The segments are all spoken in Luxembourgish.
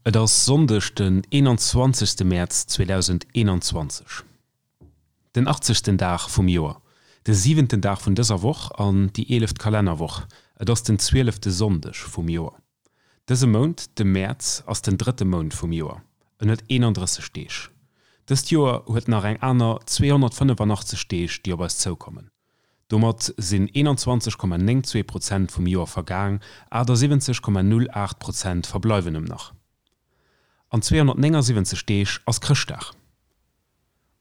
Et ass Sonndeg den 21 Mäerz 2021, den achtzegsten Dag vum Joer, de siwenten Dag vun dëser Woch an déi eeleft Kalennerwoch. Et ass den zwielefte Sonndeg vum Joer. Dëse Mount, de Mäerz, ass den drëtte Mount vum Joer. En huet 31 Deeg. Dëst Joer huet nach eng aner 285 Deeg, déi op eis zoukommen. Domat sinn 21,92 Prozent vum Joer vergaang, 78,08 Prozent verbleiwen em nach. An 279 Deeg ass Chrëschtdag.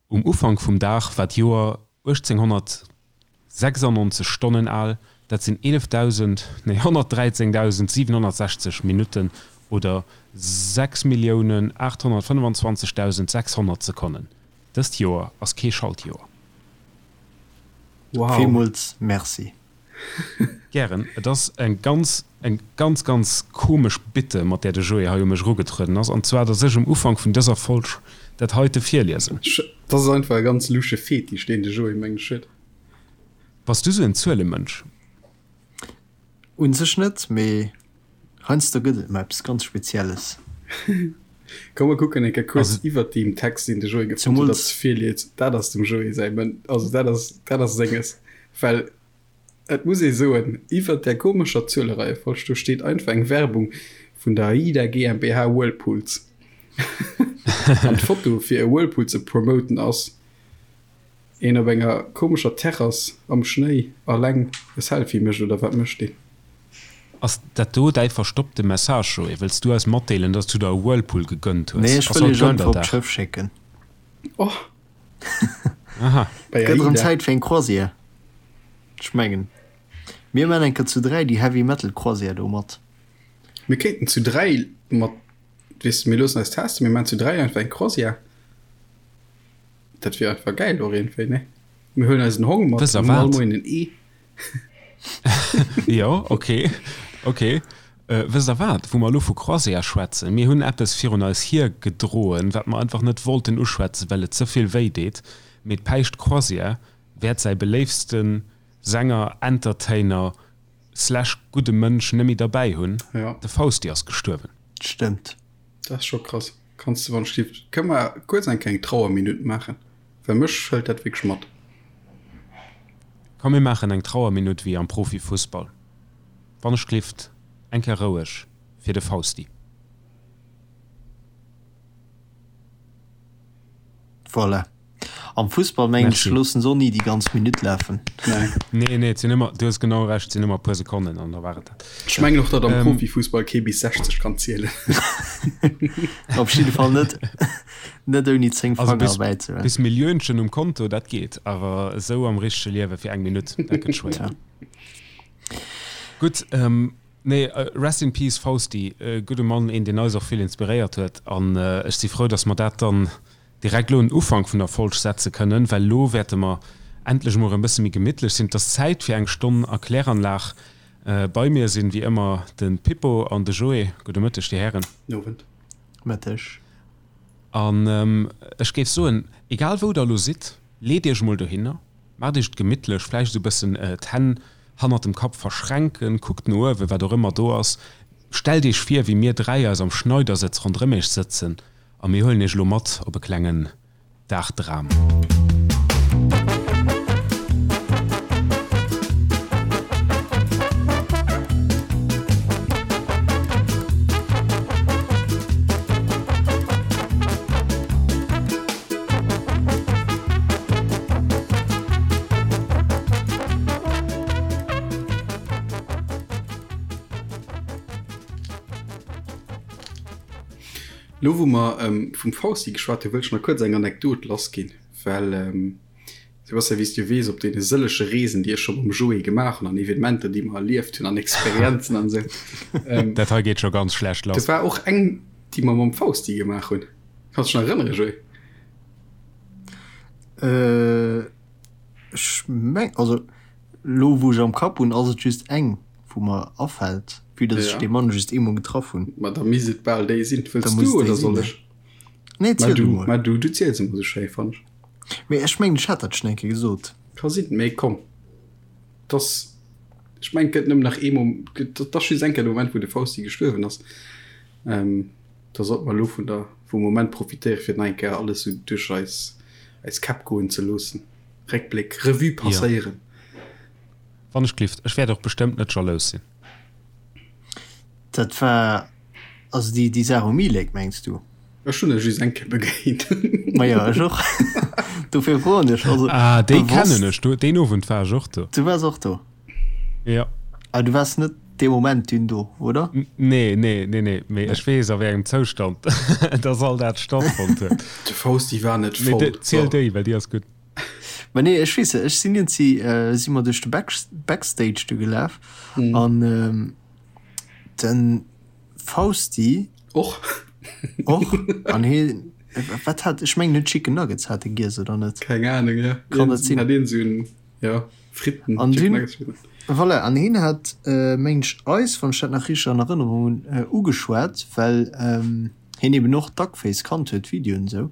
Um Ufank vum Dag war d'Joer 1896 Stonnen al, dat sinn 11.000, nee 113.760 Minutten oder 6.825.600 Sekonnen. Dëst Joer ass kee Schaltjoer. Wow. Villmools Merci. Gären. Et ass eng ganz, eng ganz, ganz komesch Bitte, mat där de Joé hei u mech erugetrueden ass, an zwar, dass ech um Ufank vun dëser Folg dat heite virliesen. Dat ass einfach e ganz lusche Fetisch, deen de Joé, mengen ech, huet. Bass du sou en Zuelemënsch? Un sech net, mee heiansdo gëtt et mol eppes ganz Spezielles. Komm mer kucken eng Kéier kuerz iwwert deem Text, deen de Joé gefonnt huet, datt virliest. Dat ass dem Joé säi Mën, also dat ass, dat ass senges. Well et muss ee soen, iwwert där komescher Zuelereiefolg do steet einfach eng Werbung vun der AIDA GmbH Whirlpools. An d'Foto fir e Whirlpool ze promoten ass Een op enger komescher Terrass am Schnéi alleng e Selfie mécht, oder wat mécht deen? Ass dat do däi verstoppte Message, Joé? Wëlls du eis matdeelen, dass du der e Whirlpool gegönnt hues? Nee, ech wëll iech einfach op d'Schëff schécken. Oh! Aha. Et gëtt erëm Zäit fir eng Croisière. Ech mengen, mir man eng Kéier zu 3 déi Heavy Metal Croisière do mat. Mir kéinten zu 3 mat, weess de, mir loossen eis testen, mir man zu 3 einfach eng Croisière. Dat wier einfach gäil och iergendwéi, ne? Mir huelen eisen Hong mat, Wësst der hunn all wat? Moien en Ee. Jo, okay, okay. Wësst der wat, wou mer elo vu Croisière schwätzen, mir hunn eppes virun eis hiergedroen, wat mer einfach net wollten uschwätzen, well et ze vill wéi deet, mee d'Päischt Croisière wäert säi beléiftste Sänger, Entertainer slash gudde Mënsch net méi derbäi hunn, Ja. de Fausti ass gestuerwen. Stëmmt. Dat ass scho krass. Kanns de wann ech kënne mer kuerz eng kleng Trauerminutt maachen, well mech hëlt dat wierklech mat. Komm mir maachen eng Trauerminutt wéi am Profifussball. Wann ech glift, eng Kéier roueg fir de Fausti. Voilà. Am Fussball mengen ech loossen se och ni déi ganz Minutt lafen. Nee, nee, et sinn ëmmer, du hues genau Recht, et sinn ëmmer e puer Sekonnen an da war et dat. Ech mengen och, datt am Profifussball kee bis 60 kann zielen. Op jidde Fall net, net ouni 10 Fanger erbäi ze hunn. Bis Milliönchen um Konto, dat geet, awer esou am richtege Liewe fir eng Minutt, dat gëtt schwéier. Gutt, nee, rest in peace Fausti, gudde Mann, een deen eis och vill inspiréiert huet an ech si frou, datt mer dat dann direkt elo en Ufank vun der Folg setze kënnen, well elo wäerte mer endlech emol erëm e bësse méi gemittlech sinn. Et ass Zäit fir eng Stonn a Kläranlag. Bei mir sinn wéi ëmmer de Pippo an de Joé. Gudde Mëtteg, Dir Hären. Owend. Mëtteg. An ech géif soen, egal wou Der elo sidd, leet Iech emol dohinner, maacht Iech et gemittlech, vläicht esou e bëssen d'Hänn hannert dem Kapp verschränken, kuckt no uewen, wat och ëmmer do ass, stellt Iech vir, wéi mir 3 eis am Schneidersëtz ronderëm Iech sëtzen A mir huelen iech elo mat op e klengen Dagdram. Lo wou mer vum Fausti geschwat hunn, wëll ech nach kuerz eng Anekdot lassginn, well Sebastian, wéi s du weess, op deene sëllege Reesen, déi ech scho mam Joé gemaach hunn an Evenementer, déi mer erlieft hunn an Experienzen an esou. Dat hei geet scho ganz schlecht lass. Do war och eng, déi mer mam Fausti gemaach hunn. Kanns dech nach erënneren, Joé? Ech meng, also lo wou ech am Kapp hunn, ass et just eng. Wou mer afällt, vue dass ech dee Mann just eemol getraff hunn. Ma da misst et bal déi sinn. Wëlls du oder soll ech? Nee, ziel du mol. Ma du, du ziels ëmmer sou schéi, fannen ech. Mee ech mengen, ech hat dat schonn eng Kéier gesot. Ka sinn, mee komm, dass, ech mengen, et gëtt nëmmen nach ee Mom, et ass just eng Kéier de Moment, wou de Fausti gestuerwen ass. Da sollte mer elo vun der, vum Moment profitéieren, fir nach eng Kéier alles esou duerch eis, eis Käpp goen ze loossen. Réckbléck, Revue passéieren. Wann ech glift. Ech wäert och bestëmmt net jalous sinn. Dat war also déi, déi Saach um E-Lake, mengs du? Ech hunn e just eng Kéier begéint. Majo, ech och. Dofir froen ech. Also, ah, déi kennen ech. Du, deen Owend war ech och do. Du waars och do? Jo. Awer du waars net dee Moment dunn do, oder? Nee, nee, nee, nee. Mee ech weess, a wéi engem Zoustand dass all dat stattfonnt huet. De Fausti war net voll. Mee ziel déi, well déi ass gutt. Ma nee, ech weess, ech sinn iergendwéi, si mer duerch de Back, Backstage du gelaf an de Fausti. Och. Och. An hie, wat hat, ech mengen, en huet Chicken Nuggets hat e giess, oder net? Keng Ahnung, jo. Kann dat sinn? Hat een esou en, jo. Fritten, An dunn, voilà, an hien hat, mengen ech, eis, wann ech dat nach richteg an Erënnerung hunn, ugeschwat, well hien eben och Duckface kannt huet, d'Videoen esou.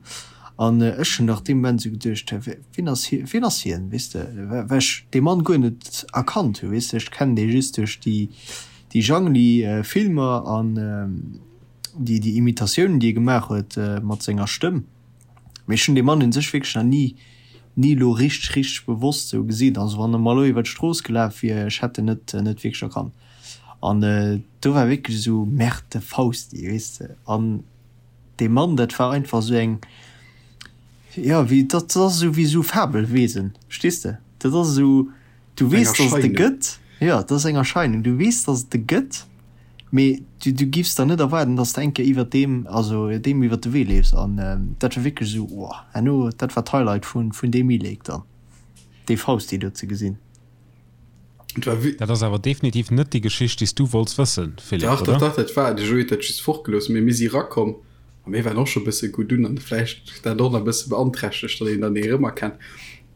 An ech hunn nach dee Moment esou geduecht, Hä, wien ass hie, wien ass hien, weess de, well ech dee Mann guer net erkannt hu, weess de. Ech kennen dee just duerch déi, déi Jangli-Filmer an déi, déi Imitatiounen, déi e gemaach huet mat senger Stëmm. Mee ech hunn dee Mann un sech wierklech nach ni, ni elo richteg, richteg bewosst sou gesinn. Also wann e mer elo iwwer d'Strooss gelaf wier, ech hätt en net, net wierklech erkannt. An do war wierklech esou, Merde, de Fausti, weess de. An dee Mann, dat war einfach esou eng, jo, wéi, dat ass esou wéi esou Fabelwesen, verstees de? Dat ass esou, du weess, dass et e gëtt, jo, dat ass eng Erscheinung, du weess, dass et e gëtt. Mee du, du giffs der net erwaarden, dass de eng Kéier iwwert deem, also deem iwwert de Wee leefs. An dat war wierklech esou, oh, herno, dat war d'Highlight vun, vun deem E-Lake dann, dee Fausti do ze gesinn. Dat ass awer definitiv net déi Geschicht, déi s du wollts wëssen, Philippe, Dach, dach, dach, dat war, de Joé huet dat just fortgelooss, mee mir si rakomm a mir waren och scho bësse gutt un an vläicht dat och nach e bësse beanträchtegt, datt een dann ee erëmerkennt.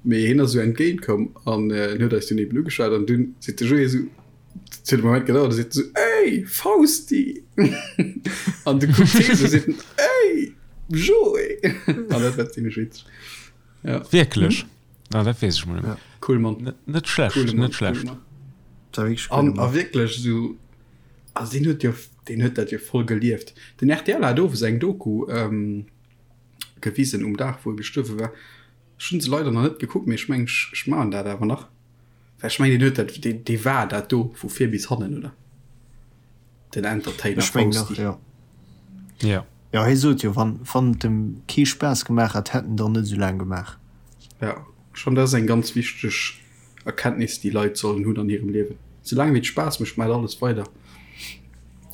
Mee hien ass esou entgéint komm an en huet eis dunn eben ugeschwat an dunn seet de Joé esou, Et huet e Moment gedauert, da seet en sou, Ey, Fausti! An du kuckt hie sou, seet en, Ey, Joé! An dat war zimmlech witzeg. Ja. Wierklech? Ah, dat weess ech mol net méi. Cool Mann. Net schlecht, Coole Mann, net schlecht. coole Mann. Dat war wierklech An, a wierklech sou, also deen huet jo, deen huet dat jo voll gelieft. Den rtl hat owes eng Doku ähm, gewisen um Dag, wou e gestuerwe war. Ech hunn se leider nach net gekuckt, mee ech mengen, ech, ech maachen dat awer nach. Well ech mengen, deen huet dat, deen, dee war dat do vu vir bis hannen, oder? Den Entertainer Ech mengen och, Fausti. jo. Ja. Jo, hie sot jo, wann, wann et em kee Spaass gemaach hätt, hätt en der net esou laang gemaach. Ja, schon dat ass eng ganz wichteg Erkenntnis, déi Leit sollen hunn an hirem Liewen. Soulaang wéi et Spaass mécht, maacht alles weider.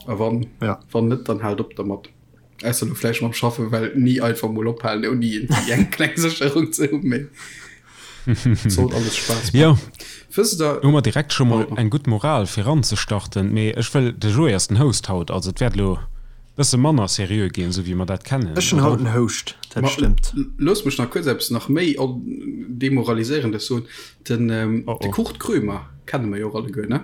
A wann, Ja. wann net, dann haalt op dermat. Ausser lo vläicht mam Schaffen, well ni einfach mol ophalen ouni iergendwéi eng kleng Sécherung ze hunn, mee et sollt alles Spaass maachen. Jo, Wësst der. hu mer direkt scho mol eng gutt Moral fir eranzestarten, mee ech wëll, de Joé ass den Host haut, also et wäert elo bësse manner seriö ginn, esou wéi mer dat kennen, Ech hunn haut oder? den Host, dat Ma stëmmt. loosst mech nach kuerz eppes nach méi Demoraliséierendes soen, Den, Oh de oh. Kurt Krömer kenne mer jo och alleguer, ne?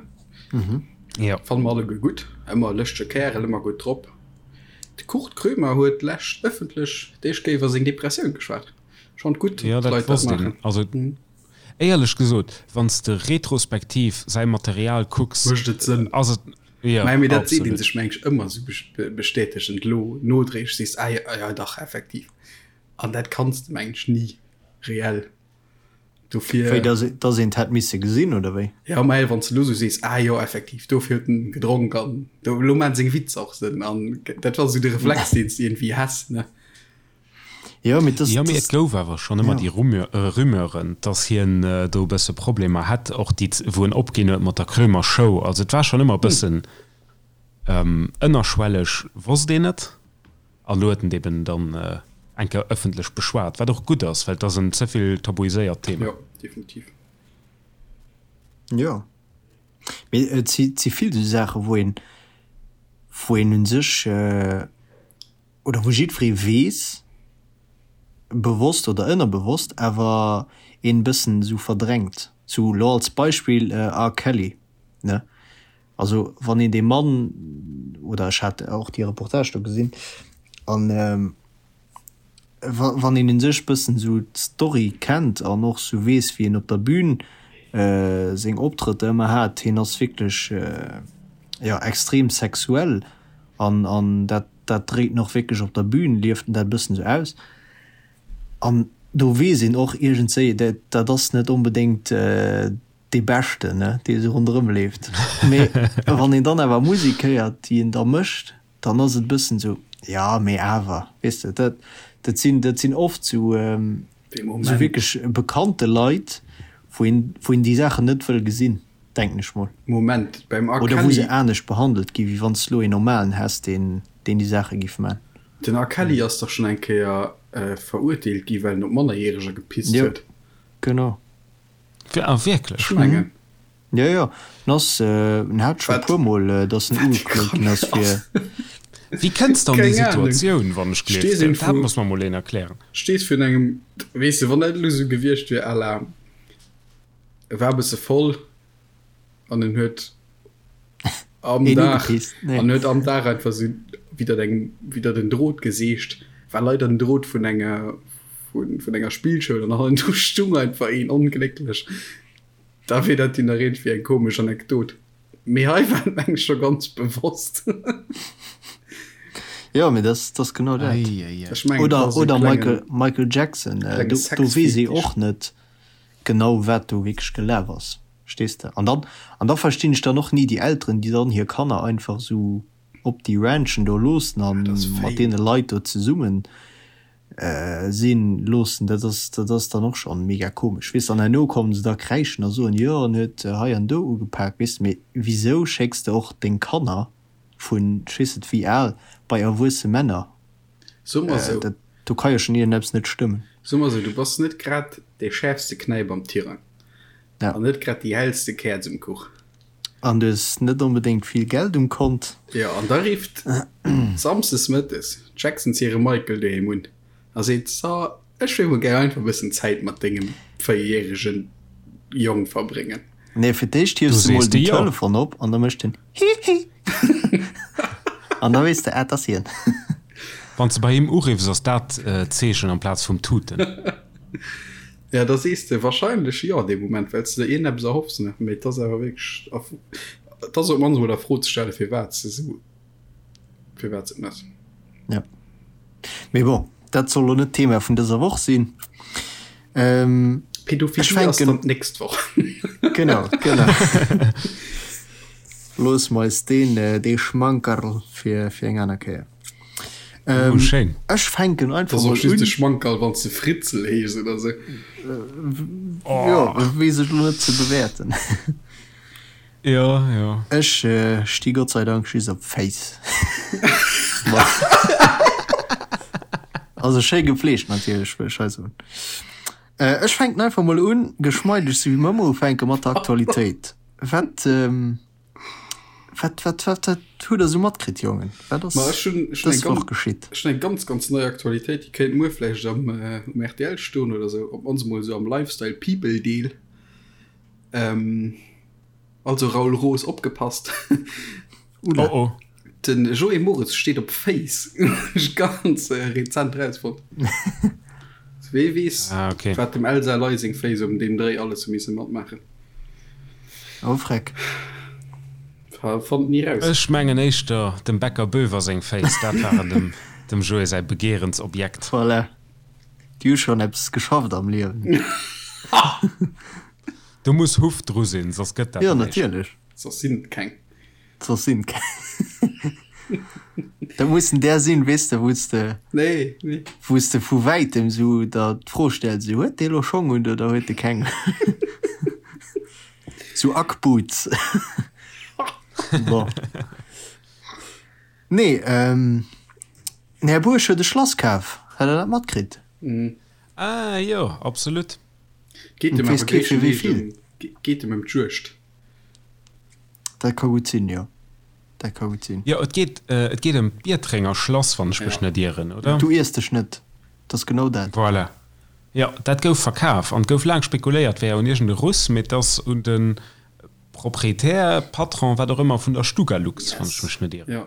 Jo. Fanne mer alleguer gutt, ëmmer e lëschtege Kärel, ëmmer gutt drop. De Kurt Krömer huet d'lescht ëffentlech d'éischt Kéier iwwer seng Depressioun geschwat. Schonn gutt, Jo, datt dat Leit dat wosst een. maachen. Also éierlech gesot, wann s de retrospektiv säi Material kucks, Mécht et Sënn. ass et, jo, Mä mee dat seet een absolut. sech meng ech ëmmer esou bestätegend elo nodréiglech, sees, ah jo, ah jo, dach, effektiv. An dat kanns de meng ech ni reell. Dofir. Wéi, dass, dass een et hätt misse gesinn, oder wéi? Ja, mä wann s de elo sou sees, ah jo, effektiv, dofir huet en gedronk an do, elo maachen seng Witzer och Sënn an dat war sou de Reflex, deen s de iergendwéi häss, ne? Jo, mee dass, Jo, mee et dass, gouf awer schonn ëmmer ja. déi Rumeur, Rumeuren, dass hien do e bësse Problemer hätt, och déi, wou en opginn huet mat der Krömer Show. Also et war schonn ëmmer e bëssen ënnerschwelleg, wosst een et. An elo huet en et eben dann eng Kéier ëffentlech beschwat, wat och gutt ass, well et ass en ze vill tabuiséiert Thema. Jo, definitiv. Jo, mee et si si vill esou Saachen, wou een, wou een u sech oder wou jiddweree weess, bewosst oder ënnerbewosst, awer een e bëssen esou verdrängt. Sou elo als Beispill R. Kelly, ne? Also wann een dee Mann, oder ech hat och déi Reportage do gesinn, an wann een u sech bëssen esou d'Story kennt an och esou weess wéi en op der Bühn seng Optrëtter ëmmer hat, hien ass wierklech jo extrem sexuell an an dat. dat dréit en och wierklech op der Bühn, lieft en dat e bëssen esou aus. An do weess een och iergendswéi, dat dat ass net onbedéngt dee Beschten, ne, dee esou ronderëm leeft. Mee wann een dann awer Musek héiert, déi en da mécht, dann ass et e bëssen esou, jo, mee awer, weess de, dat dat sinn dat sinn oft esou esou wierklech bekannte Leit, wou een wou een déi Saachen net wëll gesinn, denken ech mol. Moment, beim R. Oder wou se anescht behandelt gi wéi wann s de elo een normalen häss, deen deen déi Saache giff man. Den R. Kelly ass dach schonn eng Kéier verurteelt gi well en op Mannerjäreger gepisst huet. Jo, genau. Ah wierklech? Ech mengen. Jo, jo, en ass, en hat scho e puer mol, datt en ugeklot ginn ass fir. Wéi kënns de an déi Situatioun, wann ech gleef? Dat muss mer mol een erklären. Stees virun engem, weess de, wann dat elo esou gewiescht wier à la, e war e bësse voll an en huet am Dag, an huet am Dag einfach esou widder engem, widder den Drot geseegt, war leider den Drot vun enger, vun, vun enger Spillschoul an hannendru stung einfach een onglécklech. Da wier dat jo nach iergendwéi eng komesch Anekdot. Mee hei war et meng ech scho ganz bewosst. Jo, mee dat ass genau dat. Ech mengen, Oder, dat ass e oder klengen, Michael, Michael Jackson, klenge do, do weess ee Sexfetisch. och net genau, wat do wierklech gelaf ass, verstees de? An dann, an da verstinn ech dann och ni déi Elteren, déi dann hir Kanner einfach esou op déi Ranchen do loossen a Dat ass mat fame. deene Leit do zesummen sinn loossen, dat ass dat ass dann och schonn mega komesch, weess de. An herno kommen se da kräischen a soen, jo en huet hei an do ugepak, weess de. Mee wisou schécks de och deng Kanner vun ech weess net wéi al bei erwuesse Männer? So mer sou. Dat do ka jo schonn iergendeppes net stëmmen. So mer sou, du bass net grad dee schäerfste Knäip am Tirang. Ja. An net grad déi hellste Käerz um Kuch. An du hues net onbedéngt vill Geld um Kont. Jo, an da rifft samsdes mëttes d'Jacksons hire Michael doheem un a seet, So, ech wéilt mol gär einfach e bëssen Zäit mat dengem véierjäregen Jong verbréngen. Nee, fir d'éischt hiefs Du du mol sees de den jo. Telefon op an da mécht en Hihi an da weess de, ah, 't ass hien. Wann s de bei him uriffs, ass dat d'Zeechen amplaz vum Tuten. Ja, da sees de wahrscheinlech jo dee Moment, well s de der iergendeppes erhoffs, ne? Mee et ass awer wierklech a, et ass op d'mannst emol a Fro ze stellen, firwat s de esou, firwat s de et méchs. Ja. Mee bon, dat soll lo net d'Thema vun dëser Woch sinn. Ähm, ech Pädophilie ass fänken. dann d'nächst Woch. Genau, genau. Loosse mer eis deen, dee Schmankerl fir, fir eng aner Kéier. Oh, Ähm, schéin. ech fänken Dat einfach ass och mol just un. e Schmankerl, wann s de Fritzel heeschs oder sou. Jo, Oh. weess ech lo net ze bewäerten. Jo, jo. Ech sti Gott sei Dank just op Féiss. Also schéi gepflegt natierlech, wëll ech hei soen. Ech fänken einfach mol un, geschmeideg sou wéi mer ëmmer ufänken, mat der Aktualitéit. Wat Wat, wat, wat, wat hutt der sou matkritt, Jongen? Wat ass Ma ech hunn, ech hunn dës eng Woch ganz, geschitt? ech hunn eng ganz, ganz nei Aktualitéit, déi kéint muer vläicht am, um rtl stoen oder sou, op d'mannst emol sou am Lifestyle People Deel. Ähm, also Raoul Roos, opgepasst! Oula. Oh oh. Den Joé Moritz steet op Féiss, hunn ech ganz rezent erausfonnt. Wee weess, Ah, okay. wat dem Elsa Ley seng Féiss um deem Dréi alles hu misse matmaachen. Oh freck. Fannt ni raus. Ech mengen éischter dem Bäcker Boever seng Féiss, dat waren dem dem Joé säi Begeerensobjekt. Voilà. Déi hu schonn eppes geschafft am Liewen. Do muss Huff dru sinn, soss gëtt dat Jo, näischt. natierlech. Soss sinn et keng. Soss sinn et keng. Dat mussen där sinn, weess de, wou s de, Nee, nee. wou s de vu wäitem sou der d'Fro stells, sou, huet dee lo Schong un oder huet e keng? Sou Ackboots. Bon. Nee, ähm, den Här Buerg huet e Schlass kaf. Hat Der dat matkritt? Ah jo, absolut. Geet Et em weess awer kee fir wéi gréisstendeels vill. ëm, geet em ëm d'Juegd. Dat ka gutt sinn, jo. Dat ka gutt sinn. Jo, et geet, et geet ëm d'Biertrenger Schlass, wann ech mech Ja. net ieren, oder? Du iers dech net. Dat ass genau dat. Voilà. Jo, dat gouf verkaf an et gouf laang spekuléiert, wär un iergend e Russ, mee et ass un de Proprietär, Patron, wat och ëmmer, vun der Stugalux, wann ech Yes. mech net ieren. Ja.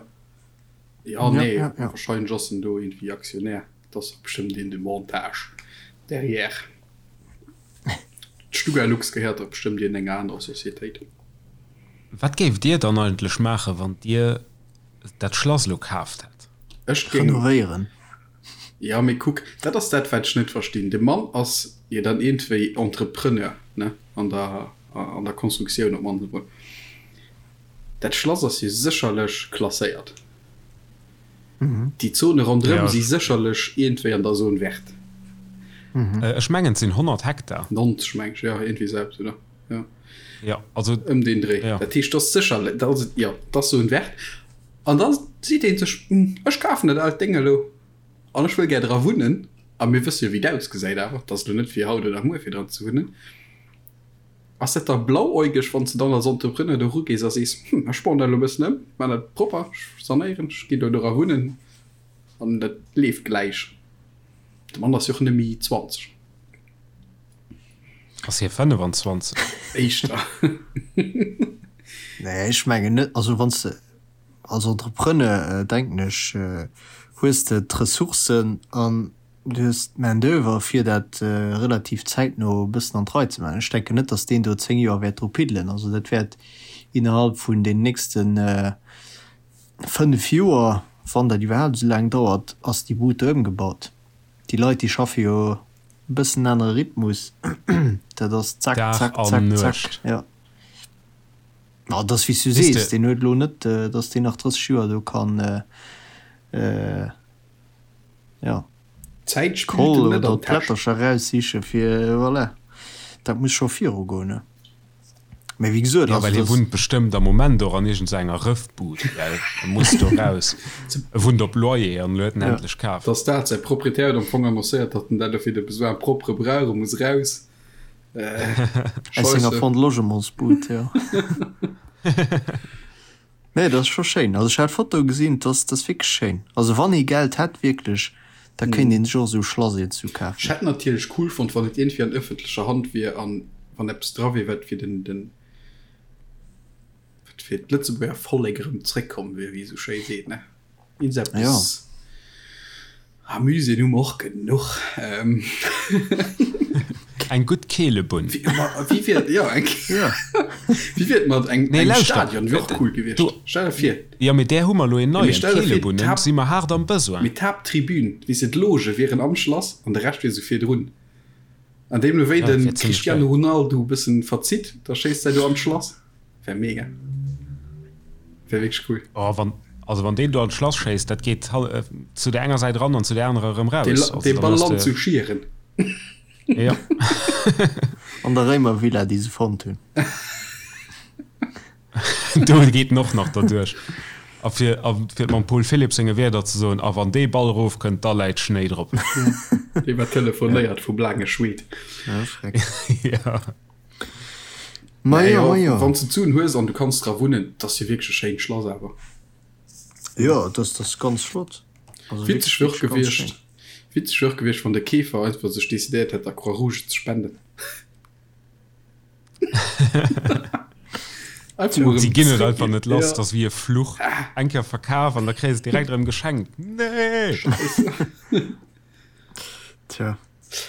Ja, Ja, nee, ja, ja. wahrscheinlech ass en do iergendwéi Aktionär. Et ass och bestëmmt een de Montage derrière. D'Stugalux gehéiert dach bestëmmt iergendenger anerer Societéit. Wat géift Dir dann eigentlech maachen, wann Dir dat Schlass elo kaaft hätt? Ech géing. Renovéieren. Jo, mee kuck, dat ass dat, wat ech net verstinn. De Mann ass jo dann iergendwéi Entrepreneur, ne, an der, an der Constructioun op d'mannst emol. Dat Schlass ass jo sécherlech klasséiert. Déi Zone ronderëm si sécherlech iergendwéi an der Zone verte. Ech mengen, et sinn 100 Hektar. 90, meng ech, jo, iergendwéi esou eppes, oder? Jo. Jo, also. Ëm deen Dréi. Dat heescht, dat ass sécherlech, dat ass, jo, dat ass Zone verte. An da seet ee sech, Ech kafen dat aalt Déng elo an ech wëll gär dra wunnen. A mir wësse jo, wéi et ausgesäit awer, et ass elo net fir haut oder muer fir dran ze wunnen. Ass dat da blauäugeg, wann s de dann als Entrepreneur do erugees a sees, Hm, ech bauen dat elo e bëssen ëm, maan dat propper, ech sanéieren, ech ginn do dra wunnen an dat leeft gläich. De Mann ass jo och net méi 20. Ass hie 25? Éischter. Nee, ech mengen net. Also wann s de als Entrepreneur, denken ech, hues de d'Ressourcen an du hues d'Main d'oeuvre fir dat relativ zäitno e bëssen an d'Rei ze maachen. Ech denken net, datt deen do 10 Joer wäert dru piddelen. Also dat wäert innerhalb vun den nächste 5 Joer, wann dat iwwerhaapt esou laang dauert, ass déi Bud do ëmgebaut. Déi Leit, déi schaffe jo e bëssen anere Rhythmus, dat ass zack, Dag zack, an zack, zack, Nuecht. jo. Ma et ass wéi s du Weess sees, de. deen huet elo net, datt deen nach 30 Joer do kann, jo, D'Zäit spillt d'Koll em net oder an d'Täsch. d'Plättercher eraussiche fir, voilà, dat muss scho virugoen, ne. Mä wéi gesot, Jo, also well hie dass. wunnt bestëmmt am Moment och an iergend sou enger Rëffbud, well e muss do raus. E wunnt op Loyer an elo huet en Ja. endlech kaf. Dass dat, säi Proprietär huet am Fong annoncéiert, datt en dat elo fir de Besoin propre brauch, e muss raus. Aus senger Scheisse. Fonds de Logementsbud, jo. Nee, dat ass scho schéin. Also ech hat d'Foto gesinn, dat ass, dat ass wierklech schéin. Also wann ee Geld hätt wierklech, da kéint een sech och esou e Schlass iergendwou Ech kafen. hätt natierlech cool fonnt, wann et iergendwéi an ëffentlecher Hand wier an wann eppes dra wier, wat fir den, den, wat fir d'Lëtzebuerger Vollek erëm zréckkomm wier, wéi ee sou schéi seet, ne? Iergendeppes. Jo. Ah, Muséeën hu mer och genuch. Eng gutt Keelebunn. Wéi wier, jo, eng, wéi wier et mat eng, engem Stadion? Wier och cool gewiescht. Stell der vir. Jo, mee där hu mer elo een neien. D'Keelebunnen si mer haart am Besoin. Mee d'Haapttribün, weess de, d'Loge wieren am Schlass an de Rescht wier esou virdrun. An deemno wéi de Cristiano Ronaldo e bëssen verzitt, da schéisst säi do an d'Schlass. Wär mega. Wär wierklech cool. Oh, wann, also wann deen do an d'Schlass schéisst, dat geet zu der enger Säit ran an zu der anerer erëm raus. Dee, Also, dee dann Ball hues lant de. zu Schieren. Ja. An der Réimervilla, déi se fonnt hunn. Do geet en och nach derduerch. A fir, a fir et mam Paul Philipp senge Wierder ze soen, A wann dee Ball erofkënnt, da läit Schnéi drop. Dee war telefonéiert vum laange Schweed. Ja, schreck. Ja. Ma Nee, jo, ma jo, jo. wann s de d'Suen hues an du kanns dra wunnen, 't ass jo wierklech e schéint Schlass awer. Jo, et ass, ass ganz flott. Also Witzeg wierklech, wier och wierklech ganz gewiescht, schéin. witzeg wier och gewiescht, wann de Keefer einfach sech decidéiert hätt, der Croix-Rouge ze spenden. Einfach mol Si erëm ginn et zréck einfach ginn. net lass, Ja. 't ass wéi e Fluch. Eng Kéier verkaf an da kréis et direkt erëm geschenkt. Nee! Scheisse. Tja.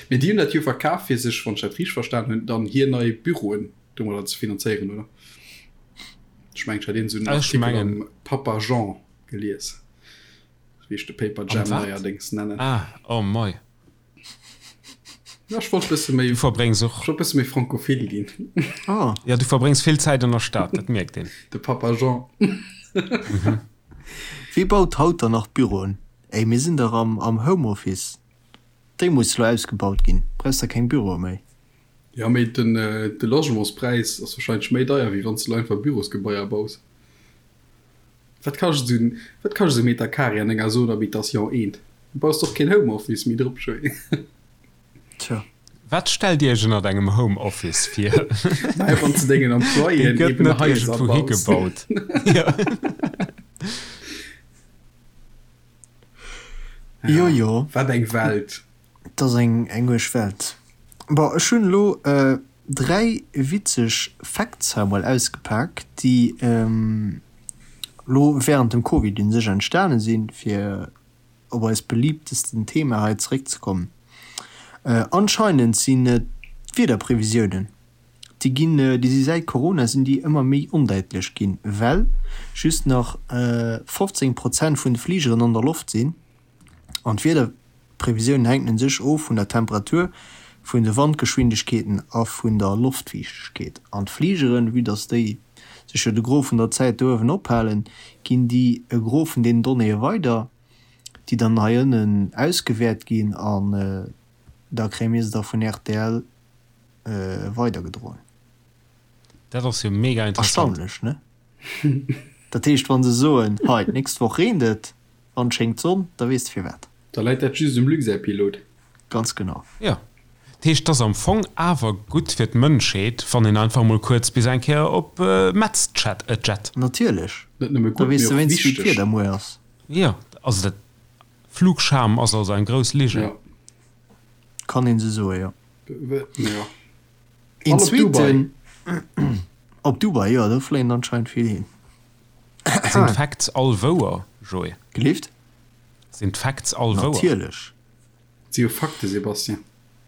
Mee déi hunn dat jo verkaf fir sech, wann ech dat richteg verstan hunn, dann hir nei Büroen domadder ze finanzéieren, oder? Ech mengen, ech hat iergend esou en Ech Artikel mengen. am Papa Jean gelies, wéi ech de Paper Am Jam wat? neierdéngs nennen. Ah, oh mei. Ja, ech wollt bësse méi, Du verbréngs och. ech wollt bësse méi frankophil ginn. Ah. Ja, du verbréngs vill Zäit an der Stad, dat mierkt een. De Papa Jean. Wie baut haut dann nach Büroen? Ey, mir sinn dach am am Homeoffice. Déi muss lo ausgebaut ginn, brauchs der keng Büroe méi. Jo, mee den de Logementspräis ass wahrscheinlech méi deier wéi wann s de lo einfach Bürosgebaier baus. Wat kascht esou en, wat kascht esou e Meter Carré an enger Zone Habitation 1? Du baus doch keen Homeoffice méi drop, Joé. Tja. Wat stellt Dir Iech ënnert engem Homeoffice vir? Naja, wann s de dengen Dee Employéen gëtt eben net Haiser iergendwou baus. higebaut. Jo. Jo, jo. Wat eng Welt. Et ass eng eng uerg Welt. Bon, ech hunn elo 3 witzeg Facts hei emol ausgepak, déi elo während dem Covid un sech entstane sinn, fir op eist beliebtesten Thema hei zeréckzekommen. Anscheinend sinn et d'Wiederprevisiounen. Déi ginn, déi si säit Corona sinn déi ëmmer méi ondäitlech ginn, well just nach 15 Prozent vun de Fligeren an der Loft sinn an d'Wiederprevisiounen hänken u sech of vun der Temperatur, vun de Wandgeschwindegkeeten a vun der Loftfiichtegkeet. An d'Fligeren, vue dass déi sech jo de Gros vun der Zäit do uewen ophalen, ginn déi e Gros vun deenen Donnéeë weider, déi dann hei ënnen ausgewäert ginn an da kréie mir se da vun rtl weidergedroen. Dat ass jo mega interessant. Erstaunlech, ne? Dat heescht, wa se soen, hei, d'nächst Woch reent et an et schéngt d'Sonn, da weess de firwat. Da läit dat just um Luxair-Pilot. Ganz genau. Jo. Dat heescht, et ass am Fong awer gutt fir d'Mënschheet, wann een einfach mol kuerz bis eng Kéier op Metz jet. Natierlech. Net nëmme Da gutt, weess mee de och wéinst, wéi wichteg. d'Wieder muer ass. Jo, also dat Flugscham ass also eng grouss Ligen. Jo. Kann een sou soen, jo. Jo. Een An op Dubai. zweeten, op Dubai, jo, do fléien anscheinend vill hin. Sinn d'Facts all wouer, Joé? Gelift? Sinn d'Facts all wouer? Natierlech. Et si jo Fakte, Sébastien.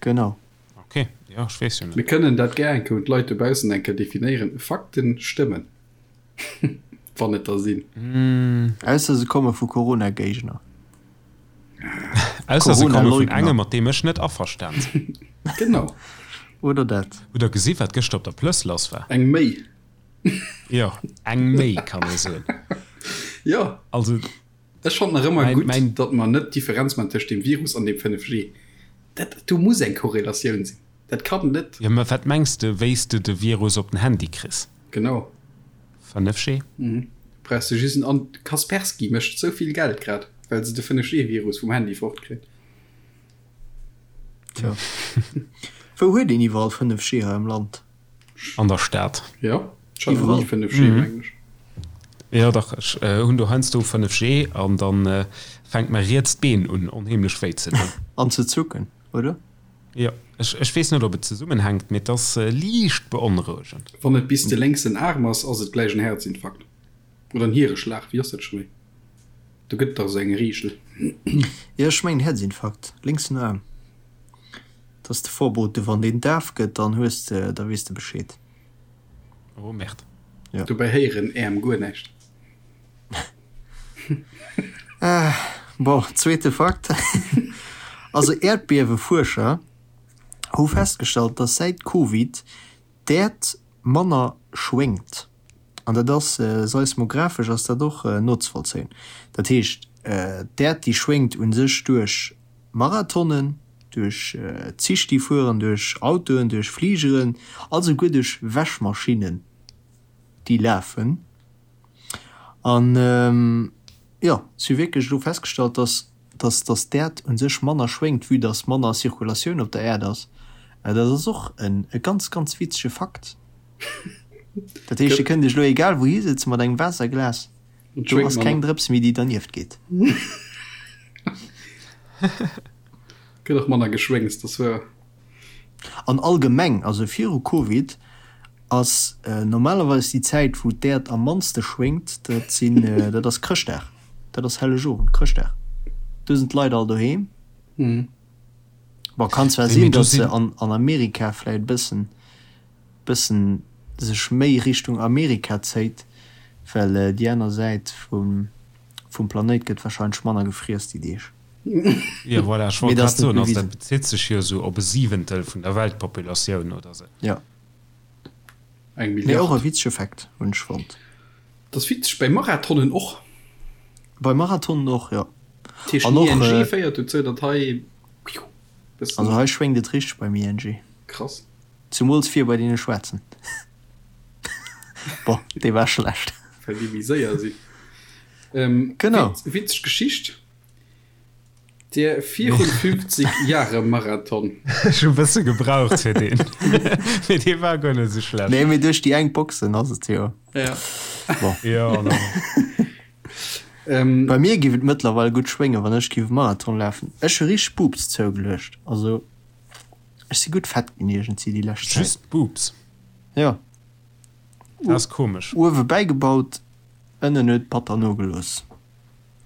Genau. Ok, jo, ech weess jo net. Mir kënnen dat gär eng Kéier un d'Leit dobaussen eng Kéier definéieren. Fakten stëmmen. Wann et der sinn. Ausser se komme vu Corona-Géigner. Ausser se komme vun engem, mat deem ech net averstan sinn. Genau. Oder dat. Hutt der gesi wat gëschter op der Plëss lass war? Eng méi. Jo, eng méi kann ee soen. Jo. Also. Ech fannen nach ëmmer gutt, datt mer net d'Differenz man tëscht dem Virus an dem 5G. Dat, do muss eng Korrelatioun sinn. Dat kann net. Jo, mä wat mengs de, wéi s de de Virus op den Handy kriss? Genau. 5G? Mhm. Brauchs de just en An. Kaspersky mécht sou vill Geld grad, well se de 5G-Virus vum Handy fortkritt. Tja. Wou huet een iwwerall 5G hei am Land? An der Stad. Jo, ech hat nach ni 5G, mengen ech. Jo, dach, ech hunn do heiansdo 5G an dann fänkt mäi rietst Been un onheemlech wéi ze doen. An ze zucken, oder? Jo, ech, ech weess net, ob et zesummenhänkt, mee et ass liicht beonrouegend. Wann et bis de lénksen Aarm ass, ass et gläich en Häerzinfarkt. Oder en Hiereschlag, wéi ass dat scho méi? Do gëtt et dach esou eng Reegel. Jo, ech mengen Häerzinfarkt, lénksen Aarm. Dat ass de Vorbote, wann deen daf gëtt, dann hues de, da weess de Bescheed. Oh Merde. Jo. Dobäi héieren Äerm guer näischt. Bon, zweete Fakt. Also Äerdbiewefuerscher hu festgestallt, dass säit Covid d'Äerd manner schwéngt. An dat ass seismographesch ass dat och nozevollzéien. Dat heescht, d'Äerd déi schwéngt u sech duerch Marathonen, duerch Zich déi fueren, duerch Autoen, duerch Fligeren a souguer duerch Wäschmaschinnen déi lafen. An jo, si hu wierklech elo festgestallt, dass, dass, dass d'Äerd u sech manner schwéngt, vue dass manner Zirkulatioun op der Äerd ass. Dat ass och en e ganz, ganz witzege Fakt. Dat heescht, Dir kënnt Iech elo egal wou hisëtzen mat engem Waasserglas, do ass keng Drëps méi, déi dernieft geet. Gëtt och manner geschwéngst, dat ass wuer. An allgemeng, also viru Covid, Ass normalerweis déi Zäit wou d'Äerd am mannste schwéngt, dat sinn, dat ass Chrëschtdag, dat ass Hellegowend, Chrëschtdag, do sinn d'Leit all doheem. Bon, kann zwar sinn, datt se an an Amerika vläit e bëssen, bëssen sech méi Richtung Amerika zéit, well déi aner Säit vum vum Planéit gëtt wahrscheinlech manner gefriess déi Deeg. Jo, voilà, ech wollt grad soen, also dat bezitt sech jo esou op e Siwentel vun der Weltpopulatioun oder esou. Jo. Eng Mee och Milliard. e witzege Fact, hunn ech fonnt. Dat ass witzeg, bei Marathonen och. Bei Marathonen och, jo. Dat heescht, An den och, ING féiert dozou, datt hei bëssen. Also hei schwéngt et richteg beim ING. Krass. Zumools vir bei deene Schwaarzen. Bon, dee war schlecht. Well déi méi séier sinn. Genau. Witzeg Geschicht. Der 54 Jahre Marathon. Ech hu bësse gebraucht fir deen. Mee dee war guer net esou schlecht. Nee, mee duerch déi enk Boxen ass et jo. Ja. Bon. Jo, an dann. Ähm. Bei mir giff et mëttlerweil gutt schwéngen, wann ech giff e Marathon lafen. Ech hu richteg Boobs zougeluecht. Also, ech si gutt fett ginn iergendsi déi lescht Zäit. Just Boobs? Jo. Dat ass komesch. Uewe bäigebaut, ënnen huet batter nogelooss.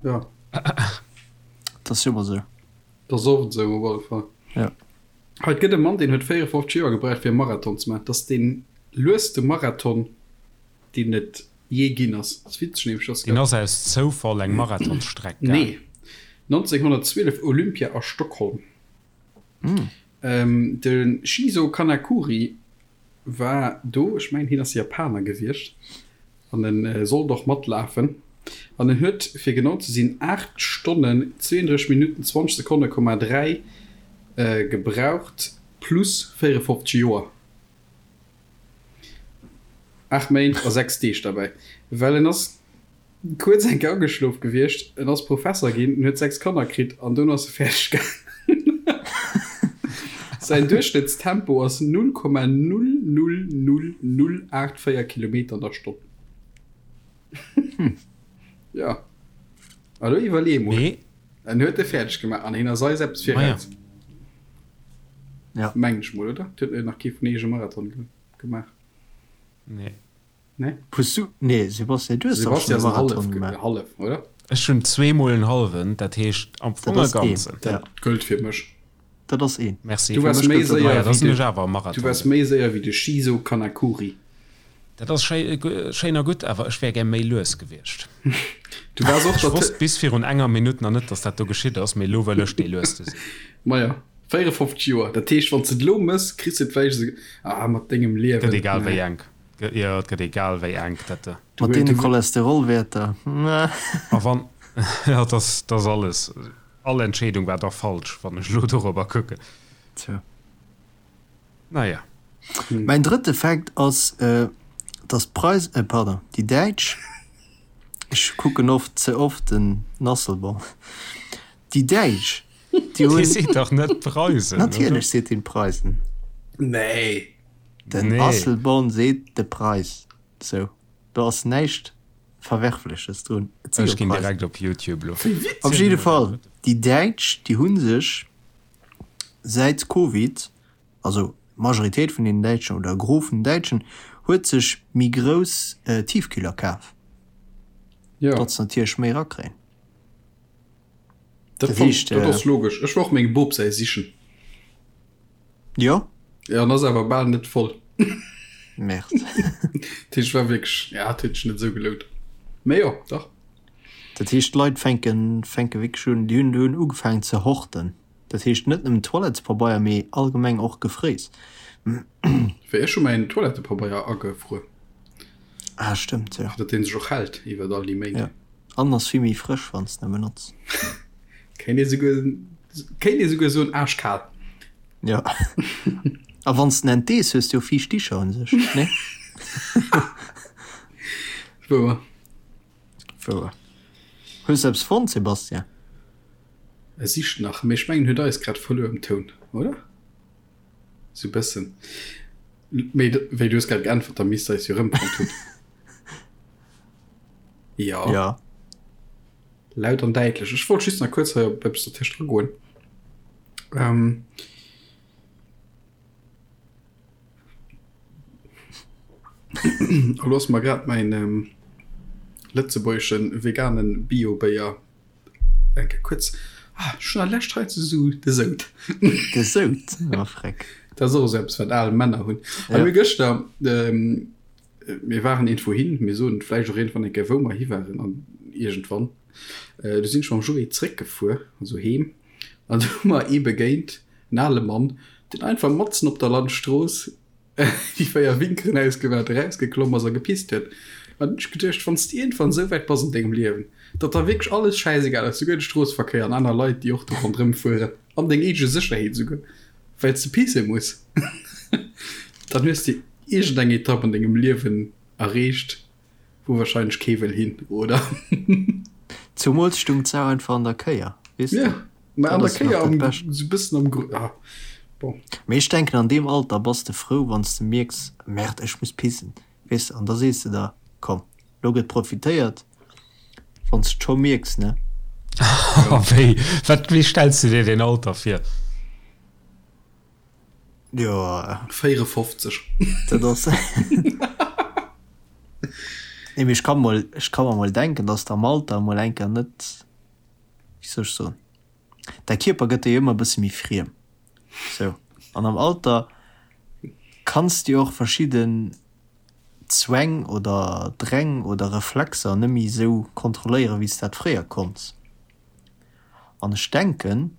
Ja. Dat ass jo ëmmer esou. Dat ass oft esou op alle Fall. Ja. Hei, et gëtt e Mann, deen huet 54 Joer gebraucht fir e Marathon ze maachen. Dat ass deen. Lueste Marathon, deen et jee ginn ass. Ass witzeg nämlech, dass. Deen ass aus Zoufall eng Marathonsstreck gaang. Nee, 1912 Olympia a Stockholm. De Shizo Kanakuri war do, ech mengen hien ass Japaner gewiescht an en sollt och matlafen an en huet fir genau ze sinn 8 Stonnen 32 Minutten 20 Sekonne Komma 3 gebraucht plus 54 Joer. 8 Méint a 6 Deeg derbäi, well en ass kuerz eng Kéier ageschlof gewiescht, en ass Professer ginn, en huet 6 Kanner kritt an dono ass e fäerdeg gaangen. Säin Duerchschnëttstempo ass 0,000084 Kilometer an der Stonn. Jo, a lo iwwerlee emol, en huet e fäerdeg gemaach an hien ass eis eppes viraus. Ja. Mengen ech mol, oder? Et huet nach kee vun eech e Marathon gemaach. Nee. Nee? Hues du, nee, Sebastian, du hues dach schon e Marathon gemaach. Hallef, oder? Ech hunn zweemol en hallwen, dat heescht am Fong e ganzen. Dat gëllt fir mech. Dat ass een. Merci. Du waars méi séier wéi de, du waars méi séier wéi de Shizo Kanakuri. Dat ass schéin a gutt, awer ech wär gär méi lues gewiescht. Du waars och Ech wosst bis virun enger Minutt nach net, dass dat do geschitt ass, mee elo wëll ech dee lueste sinn. Maja, 54 Joer, dat heescht, wann s de et elo mëss, kriss de et vläicht esou, ah, mat dengem Liewen. Gëtt egal wéi enk. Jo, et gëtt egal wéi enk dat. Mat deene Cholesterolwäerter, A wann, jo, dat ass, dat ass alles, all Entscheedung war da falsch, wann ech elo dorobber kucken. Tja. Naja. Mäin drëtte Fact ass, dass d'Preis, pardon, déi Däitsch, ech kucken oft, ze oft den Asselborn, déi Däitsch, déi hunn. Dee seet dach net d'Preisen, oder? Natierlech seet deen d'Preisen. Nee. Den Asselborn seet de Preis. Sou, do ass näischt Verwerfleches drun. Et si jo Ech ginn Preisen. direkt op Youtube lo. Op jidde Fall, déi Däitsch, déi hu sech säit Covid, also d'Majoritéit vun den Däitschen oder e Gros vun den Däitschen huet sech méi grouss Tiefkühler kaf, Jo. datt se natierlech méi erakréien. Dat Dat fannt, heescht, dat ass logesch. Ech war och mengem Bop säi sichen. Jo. Ja, an ass awer bal net voll. Merde. Dat heescht, war wierklech, ja, et huet sech net esou gelount. Mee jo, dach. Dat heescht, d'Leit fänken, fänke wierklech un, déi hunn, hunn ugefaangen ze horten. Dat heescht net nëmmen Toilettespabeier, mee allgemeng och Gefréis. Wéi ech hu mäin Toilettepabeier agefruer. Ah, stëmmt, jo. Fir datt dee sech och hält iwwert all déi Méint. Jo, an ass vill méi frësch, wann s de en benotz. Kéint ee souguer, kéint ee souguer soen aaschkal. Jo. A wann s de en entdees, hues de jo fiicht Dicher un sech, nee? Wouer. Wouer. Hues de eppes fonnt, Sébastien? E sicht nach, mee ech mengen huet eis grad verluer um Toun, oder? Sou bëssen. Mee wéi du hues grad geäntwert, da misst eis jo rëmfonnt hunn. Jo. Ja. Laut an däitlech. Ech wollt just nach kuerz hei op eppes dertëscht agoen. Ähm. Elo ass mer grad mäin lëtzebuergeschen veganen Bio-Béier eng Kéier kuerz, ah ech hunn der lescht hei ze sou de Sout. De Sout, oh freck. Dat ass och esou eppes wat al Männer hunn. A mir gëschter, mir waren iergendwou hin, mir soen vläicht och iergendwann eng Kéier wou mer hi waren an iergendwann, du sinn ech mam Joé zréckgefuer, also heem, an du hu mer ee begéint, en ale Mann, deen einfach matzen op der Landstrooss déi 4 Winkeren ausgewaart, erausgeklomm ass a gepisst huet. An hunn ech geduecht, wann s de iergendwann esou wäit bass an dengem Liewen, datt der wierklech alles schäisegal ass, souguer de Stroosseverkéier an aner Leit, déi och do ronderëm fueren, an deng eege Sécherheet esouguer, well s de pisse muss, dann hues de iergendeng Etapp an dengem Liewen erreecht, Wou wahrscheinlech kee wëll hin, oder? Zumools stung d'Sau einfach an der Kéier, weess de? Ja, mä an Dat der ass nach Kéier dat am, Bescht. sou bëssen am Gru, ah, bon. Mee ech denken, an deem Alter bass de frou, wann s de mierks, Merde, ech muss pissen, weess de? An da sees de der, Komm, lo gëtt profitéiert, wann s de scho mierks, ne? Wéi, wat, wéi stells de dir deen Alter vir? Jo. 54. Dat ass. Nee, mee ech ka mol, ech ka mer mol denken, dass de am Alter emol eng Kéier net, wéi soll ech soen, däi Kierper gëtt der jo ëmmer e bësse méi friem, sou. An am Alter kanns de jo och verschidde. Zwäng oder Dräng oder Reflexer net méi esou kontrolléieren, wéi s de dat fréier konns. An ech denken,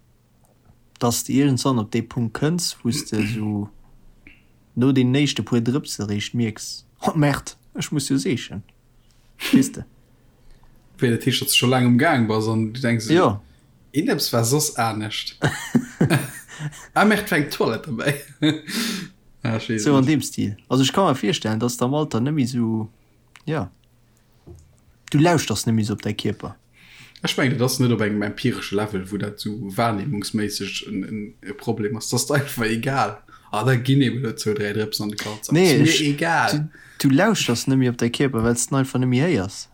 dass de iergendwann op dee Punkt kënns, wou s de esou no deenen éischte puer Drëpse eréischt mierks, Oh Merde, ech muss jo seechen. Weess de? Wéi, dat heescht, datt s de scho laang um Gaang bass an du denks esou, Jo. Iergendeppes war soss anescht. Ah Merde, war eng Toilette derbäi. Ah, ech weess et Sou an net. deem Stil. Also ech ka mer virstellen, dass de am Alter net méi esou, jo, du lauschters net méi esou op däi Kierper. Ech mengen, dat ass net op engem empiresche Level, wou dat esou wahrnehmungsméisseg e Problem ass. Dat ass der einfach egal. Ah, da ginn eben elo zwou, dräi Drëpsen an de Kalzak. Nee, Ass mir ech, egal. du, du lauschters net méi op däi Kierper, well s de en einfach net méi héiers.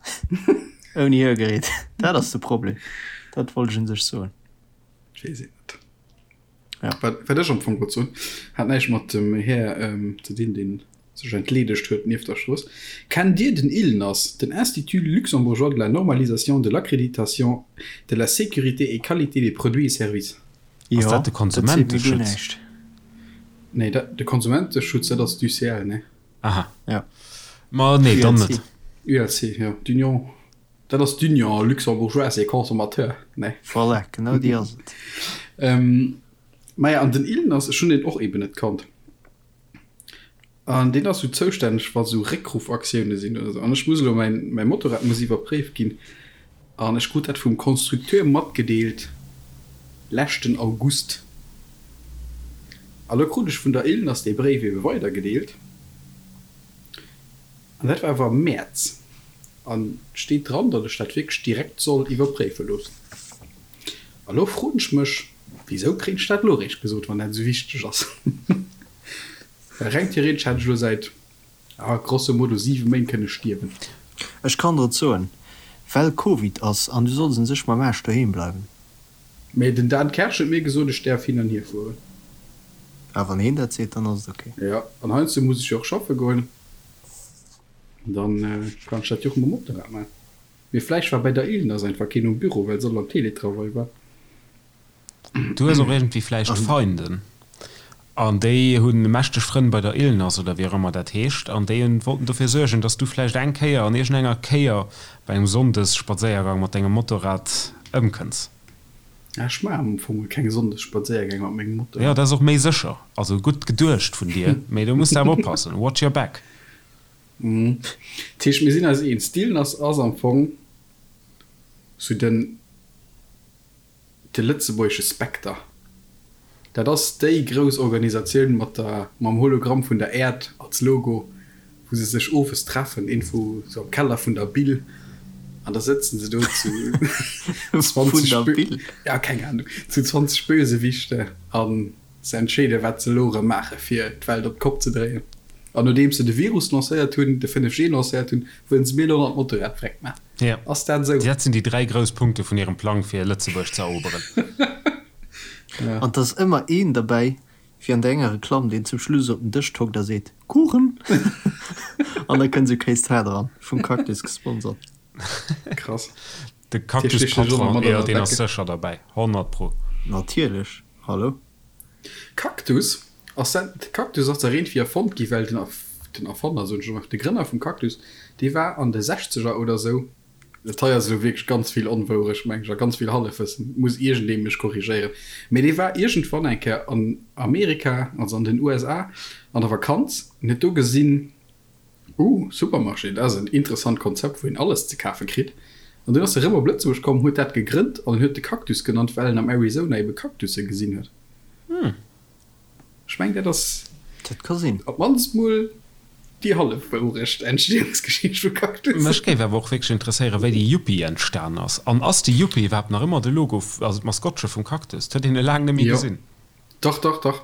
Ouni Hörgerät. Dat ass de Problem. Dat wollt ech un sech soen. Ech weess et net. Ja. Wat, wat ech am Fong wollt soen, hat näischt mat dem Här ähm, ze dinn, deen sech entleedegt huet nieft der Strooss. Kennt Dir den ILNAS, den Institut luxembourgeois de la normalisation, de l'accréditation, de la sécurité et qualité des produits et services? Ass Jo, dat de dat seet mir guer Konsumenteschutz? näischt. Nee, dat, de Konsumenteschutz, dat ass d'UCL, ne? Aha. Ja. Ma nee, dann ULC. net. ULC, jo, d'Union, dat ass d'Union luxembourgeoise des consommateurs, ne? Voilà, genau déi ass et. Ähm, maja, an den ILNAS, ech hunn deen och eben net kannt. An deen ass sou zoustänneg, wa sou Réckruffaktioune sinn oder sou. An ech muss elo, mäin, mäi Motorrad muss iwwerpréift ginn. An ech krut dat vum Constructeur matgedeelt leschten August. A lo krut ech vun der ILNAS dee Bréif ebe weidergedeelt. An dat war awer am Mäerz. An et steet dran, datt ech dat wierklech direkt soll iwwerpréife loossen. A lo froen ech mech, Wisou kréien ech dat elo eréischt gesot, wann dat esou wichteg ass? Well reng theoretesch hätt ech elo säit, ah, grosso modo 7 Méint kënne stierwen. Ech kann der et soen, well Covid ass an du solls un sech mam Aarsch doheem bleiwen. Mee den Dan Kersch huet mir gesot, ech däerf hin an hier fueren. Ah, wann heen dat seet, dann ass et ok. Jo, an heiansdo muss ech jo och schaffe goen, dann kann ech dat jo och mam Motorrad maachen. Mee vläicht war bei der Ilnas einfach keen um Büro, well se all am Teletravail war. Du hues och iergendwéi vläicht Feinden an déi hu mächteg Frënn bei der ILNAS oder wéi och ëmmer dat heescht an déi wollten dofir suergen, dass du vläicht eng Kéier an iergendenger Kéier bei engem Sonndesspadséiergang mat dengem Motorrad ëmkënns. Ech maachen am Fong keng Sonndesspadséiergäng mat mengem Motorrad. Jo, dat ass och méi sécher. Also gutt geduecht vun dir, mee do muss de awer oppassen. Watch your back. Dat heescht, mir sinn eis eens, d'ILNAS ass am Fong sou den. De lëtzebuergesche Spekter, dat ass déi grouss Organisatioun mat der, mam Hologramm vun der Äerd als Logo, wou se sech owes treffen, iergendwou sou am Keller vun der Bil, an da sëtzen se do zu 20 Bö, ja, keng Ahnung, zu 20 Bösewichte a se entscheeden, wat se elo erëm maache fir d'Welt op d'Kopp ze dréien. An nodeems se de Virus lancéiert hunn, de 5G lancéiert hunn, wëllen se mir elo nach d'Motorrad vreckt maachen. Ja. Ass dat esou? Dat sinn déi 3 grouss Punkte vun hirem Plang fir Lëtzebuerg ze eroberen. Ja. An 't ass ëmmer een derbäi, wéi an der enger Reklamm, deen zum Schluss op den Dësch tockt a seet, Kuchen! An da kënnt esou Kéis Tarte eran, vum Cactus gesponsert. Krass. De Cactus-Patron, jo, deen ass sécher derbäi, 100 pro. Natierlech, hallo? Cactus ass dat, de Cactus ass der iergendwéi erfonnt gi well den den Erfanner, soen ech elo mol, de Grënner vum Cactus, dee war an de Sechzeger oder sou, dat hei ass elo wierklech ganz vill Onwourecht, meng ech, a ganz vill Hallefwëssen, muss iergendee mech korrigéieren, mee dee war iergendwann eng Kéier an Amerika, also an den USA, an der Vakanz an huet do gesinn, Uh, Supermarché, dat ass en interessant Konzept, wou een alles ze kafe kritt. An dunn ass e rëm op Lëtzebuerg komm, huet dat gegrënnt an en huet de Cactus genannt, well en am Arizona ebe Cactusse gesinn huet. Ech mengen, dat ass Dat ka sinn. op d'mannst mol déi hallef Wourecht, Entstehungsgeschicht vu Cactus. Mech géif awer och wierklech interesséieren, wéi de Yuppie entstan ass. An ass de Yuppie iwwerhaapt nach ëmmer de Logo, also d'Maskottche vum Cactus? 't huet een e laang net méi Jo. gesinn. Dach, dach, dach.